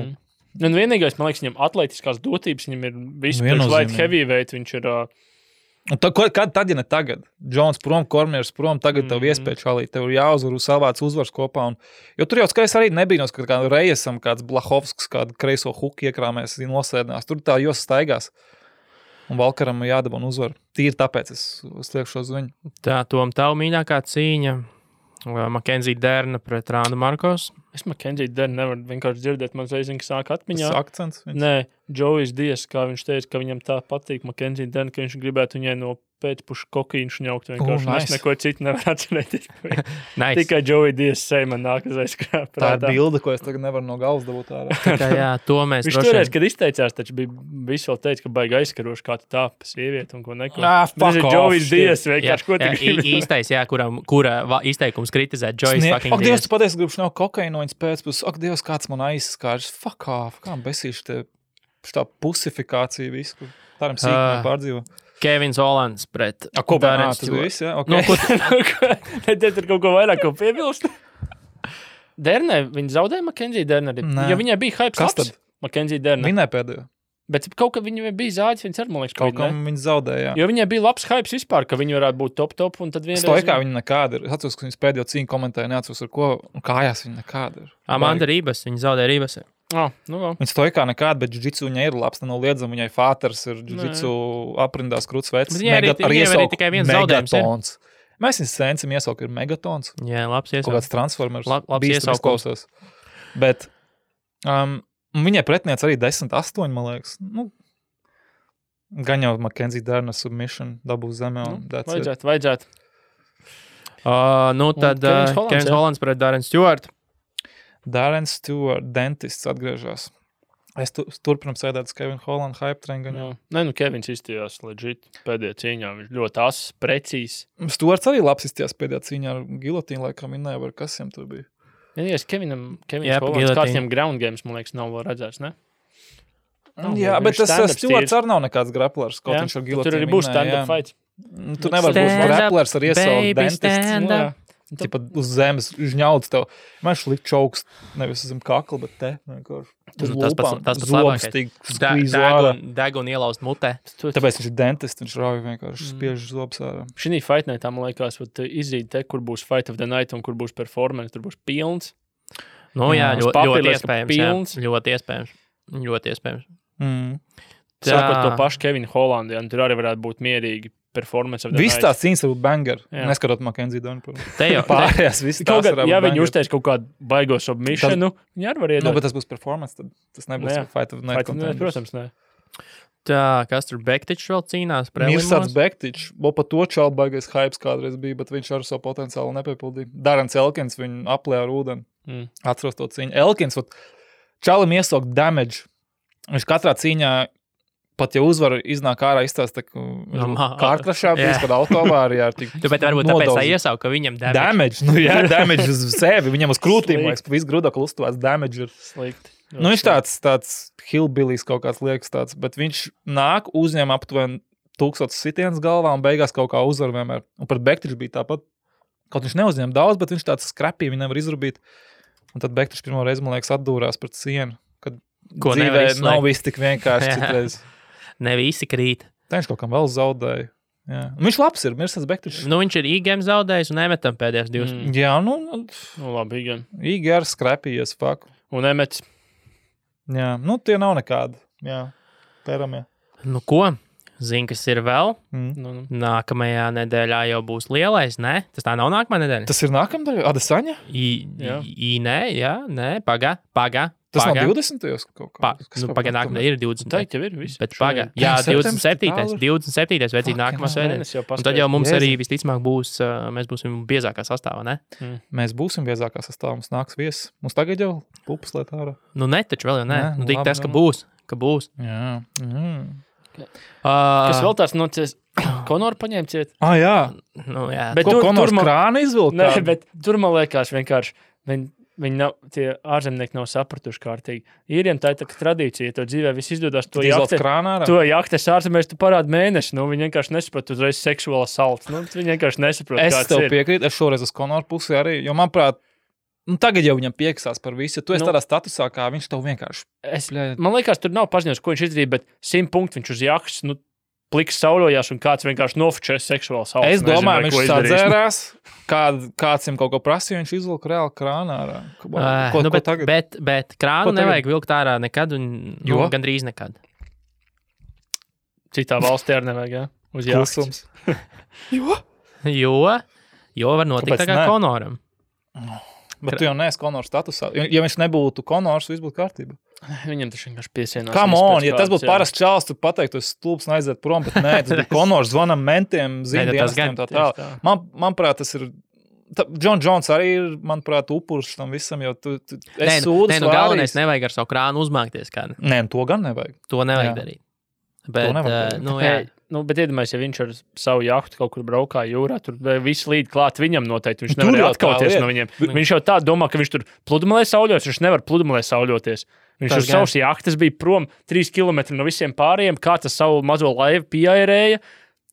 Un vienīgais, man liekas, viņam atletiskās dotības, viņam ir visu priekš light heavyweight, viņš ir... Kad tad, ja ne tagad? Jones prom, Kormiers prom, tagad tev iespēja šalīt, tev ir jāuzvar savāds uzvars kopā. Jo tur jau skaidrs arī nebija, ka kā Reyesam kāds Blahovskis, kādu kreiso huku iekrāmēs, nosēdinās. Tur tā jos staigās. Un Walkeram jādabā un uzvar. Tīri tāpēc es liekšu uz viņu. Tā, Tom, tavu mīļākā cīņa. Mackenzie Derna pret Randu Markos. Es Mackenzie Derna nevaru vienkārši dzirdēt, man zvaigzīgi sāk atmiņā. Tas akcents? Nē, Joey's Dies, kā viņš teica, ka viņam tā patīk Mackenzie Derna, ka viņš gribētu viņai no pēcpušu kokīnu šņaukt vienkārši. Nice. Es neko citu nevaru atcerēties. Nice. Tikai Joey Dies seja man nāk uz aizskrāt. Tā ir bilde, ko es tagad nevaru no galvas dabūt ārā. Jā, to mēs viņš toreiz, kad izteicās, taču bija visu vēl teica, ka baigi aizskaroši, kā tu tā pa sievieti un ko neko. Fuck off. Joey's Dies vienkārši, ko tu gribi. Īstais, jā, kura izteikums kritizēt Joey's fucking Dies. Ak, Dievs, tu patiesi gribu šņaukt kokainu no viņas pēcpus. Ak, Dievs, kāds man aizskārs. Fuck off. Kā besīši te šitā pusifikācija visu. Tādam sīkumiem pārdzīvo. Kevins Hollands pret Darren Stewart. Tas bija viss, jā? Okay. Te tur kaut ko vairāk ko piebilst. Dernē, viņi zaudēja Mackenzie Derna arī. Jo viņai bija hype slaps. Mackenzie Derna. Viņai pēdējo. Bet kaut kā viņai bija zāģis, viņas ar, man liekas, kaut kam viņi zaudēja, jā. Jo viņai bija labs hypes vispār, ka viņi varētu būt top, un tad vienreiz... Stoikā viņa nekāda ir. Atceros, ka viņas pēdējo cīņu komentēja, neatceros ar ko, un kājās viņa nekāda ir. Amanda Ribas, viņa zaudēja Ribas. Viņa stoikā nekāda, bet jiu-jitsu viņai ir labs, nenoliedzam, viņai fāters ir jiu-jitsu aprindās krūts vecs. Viņai arī tikai viens zaudējums ir. Mēs viņas sēncam iesauku ir megatons. Jā, labs iesauku. Kaut kāds transformers. Labs iesauku. Bet viņai pretiniec arī 10-8, man liekas. Gan jau Mackenzie Derna submission dabūs zemē. Vajadzētu. Tad Kevins Hollands pret Darren Stewart. Darren Stewart, dentists atgriežās. Es turpinam sēdēt uz Kevin Holland hype train. Nē, Kevins izstījās legit pēdējā cīņā. Viņš ļoti ass, precīzs. Stuarts arī labs izstījās pēdējā cīņā ar gilotīnu, laikam minēja, var kas jam tur bija. Ja Kevins Hollands, kāds viņam ground games, man liekas, nav vēl redzēts, ne? Jā, bet tas Stuarts arī nav nekāds graplers, kaut viņš ar gilotīnu tur arī būs stand-up fight. Tu nevar būt graplers ar iesaukt dentists. Tipa uz zemes žņauts tev. Man šlikt čauks nevis uz zem kakla, bet te. Tas pats labākais. Degunu ielaust mutē. Tāpēc viņš ir dentists, viņš rauj vienkārši spiež zobs ārā. Šī Fight Nightā, man liekas, izrīd te, kur būs Fight of the Night un kur būs performance, tur būs pilns. Nu jā, ļoti iespējams. Ļoti iespējams. Sākot to pašu Kevinu Hollandu, tur arī varētu būt mierīgi performance of the night. Viss tās cīņas var būt banger. Jā. Neskatot Mackenzie Donu. Pārējās viss tās var būt ja viņi uztais kaut kādu baigo submissionu, viņi arī var iedot. Bet tas būs performance, tad tas nebūs Fight of the Night. Protams, ne. Tā, kas tur Bektičs vēl cīnās? Mirsāds Bektičs, vēl pa to čalu baigais hypes kādreiz bija, bet viņš ar savu potenciālu nepiepildīja. Darans Elkins viņu aplēja ar ūdeni. Atceros to cīņu. Elkins, čalim iesaukt damage. Viņš katrā cīņā, pat ja uzvaru iznāk ārā izstāsta, ka kārkrašā bijis, kad autovārijā. Bet varbūt tāpēc tā iesauka, ka viņam damage. Damage uz sevi, viņam uz krūtīm, liekas, pa visu grudaklu uztuvās damage ir. Slikti. Viņš tāds hillbillies kaut kāds liekas tāds, bet viņš nāk, uzņem aptuveni 1000 sitienas galvā un beigās kaut kā uzvar vienmēr. Un pat Bektičs bija tāpat, kaut viņš neuzņem daudz, bet viņš tāds skrapī, viņi nevar izrubīt. Un tad Bektičs pirmo reizi, man liekas, atdūrās pret sienu, kad dzīvē nav viss tik vienkārši citreiz. Ne visi krīt. Tā viņš kaut kam vēl zaudēja. Jā. Un viņš labs ir, Mirsāds Bektičs. Nu, viņš ir IGM zaudējis un Emetam pēdējās divas. Jā, labi, IGM. IGR skrapījies, fuck. Un Emets. Jā, tie nav nekādi. Jā, pēramie. Nu, ko? Zini, kas ir vēl? Nākamajā nedēļā jau būs lielais, ne? Tas tā nav nākamā nedēļa? Tas ir nākamā nedēļa? Adesaņa? Nē, pagā. Tas nav 20. kaut kā. Pagā nākamā ir 20. Tā jau ir viss. Bet pagā. Jā, 27. vajadzīgi nākamā sēdēs. Un tad jau mums arī visticamāk būs, mēs būsim biezākā sastāvā, ne? Mēs būsim biezākā sastāvā, mums nāks viesis. Mums tagad jau pupas liet ārā. Nu, ne, taču vēl jau ne. Nu, tik tas, ka būs. Jā. Kas vēl tāds nocies? Konoru paņēma ciet? Jā. Nu, jā. Bet ko Konors krāna izvilkt? Nē, bet tur man liekas vienkārši, viņi nav, tie ārzemnieki nav sapratuši kārtīgi. Īriem tā ir tā tradīcija, ja to dzīvē viss izdodas, to jaktes ārzemēs tu parādi mēnesi, viņi vienkārši nesaprot uzreiz seksuāla salts. Viņi vienkārši nesaprot, kāds ir. Es tev piekrītu, es šoreiz uz Konoru pusi arī, jo manuprāt, tagad jau viņam pieksās par visu, tu esi tādā statusā, kā viņš tev vienkārši. Man liekas, tur nav paziņojums, ko viņš izdarīja, bet 100 punktu viņš uz jaktes, pliks saulojās un kāds vienkārši nofočēs seksuāli salts. Es domāju, viņš sadzērās, kāds viņam kaut ko prasīja, viņš izvilka reāli krānā ārā. Bet krānu nevajag vilkt ārā nekad un gandrīz nekad. Citā valstī arī nevajag, jā? Uz jāksums. Jo var notikt tā kā Konoram. Bet tu jau neesi Konors statusā. Ja viņš nebūtu Konors, viss būtu kārtībā. Viņam tas vienkārši piesienās. Come on, ja tas būtu parasts čāls, tu pateiktu, es stulbs un aiziet prom, bet nē, tas bija Konors, zvanam mentiem, zīmdienestiem tā tālāk. Manuprāt, tas ir, John Jones arī ir, manuprāt, upurs tam visam, jo tu esi sūdus vārīs. Galvenais nevajag ar savu krānu uzmākties kādu. Nē, to gan nevajag. To nevajag darīt. Bet, bet iedomājies, ja viņš ar savu jahtu kaut kur braukā jūrā, tur viss līd klāt viņam noteikti. Viņš nevar atkauties no viņiem. Viņš jau tā domā, ka viņš tur pludmalē sauļoties, viņš nevar pludmalē sauļoties. Viņš uz savas jahtas bija prom 3 kilometri no visiem pārējiem, kā tas savu mazo laivu pieairēja,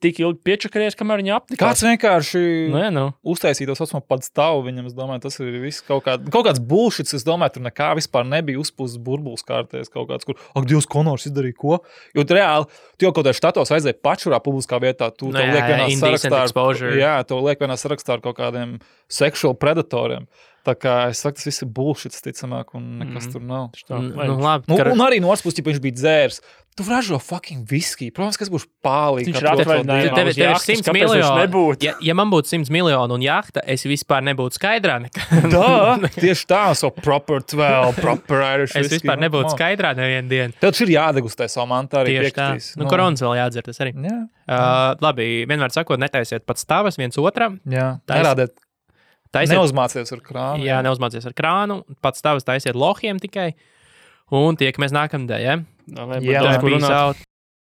tik ilgi piečakarējies, kamēr viņa apnikās. Kāds vienkārši uztaisīja to saucamo padstavu viņam, es domāju, tas ir viss kaut kāds bullshits, es domāju, tur nekā vispār nebija uzpūsts burbulis kārtēs kaut kāds, kur, Dievs, Konors izdarīja ko? Jo reāli, tu jau kaut kādā štatos aizēji pačurā publiskā vietā, tu to liek vienā sarakstā, to liek vienā sarakstā ar kaut kādiem sexual predatoriem. Tā kā es saku, tas viss ir bullshits, ticamāk, un nekas tur nav. Un arī no otras puses, ja viņš bija dzērs, tu ražo fucking viski. Protams, kas būs pālīgi. Viņš atvaļinājumā uz jahtas, kāpēc viņš nebūtu? Ja man būtu 100 miljonu un jahta, es vispār nebūtu skaidrā nekā. Tieši tā, proper Irish es vispār nebūtu skaidrā nevienu dienu. Tev ir jādegustē savu mantu arī piekritīs. Koronas vēl jādzer, tas arī. Labi, vienmēr sakot, netaisiet pats stāvas viens otram. Jā, nerādiet. Neuzmācies ar krānu. Jā, neuzmācies ar krānu. Pats tavs taisiet lohiem tikai. Un tiekamies nākamdēļ, ja? Jā, peace out.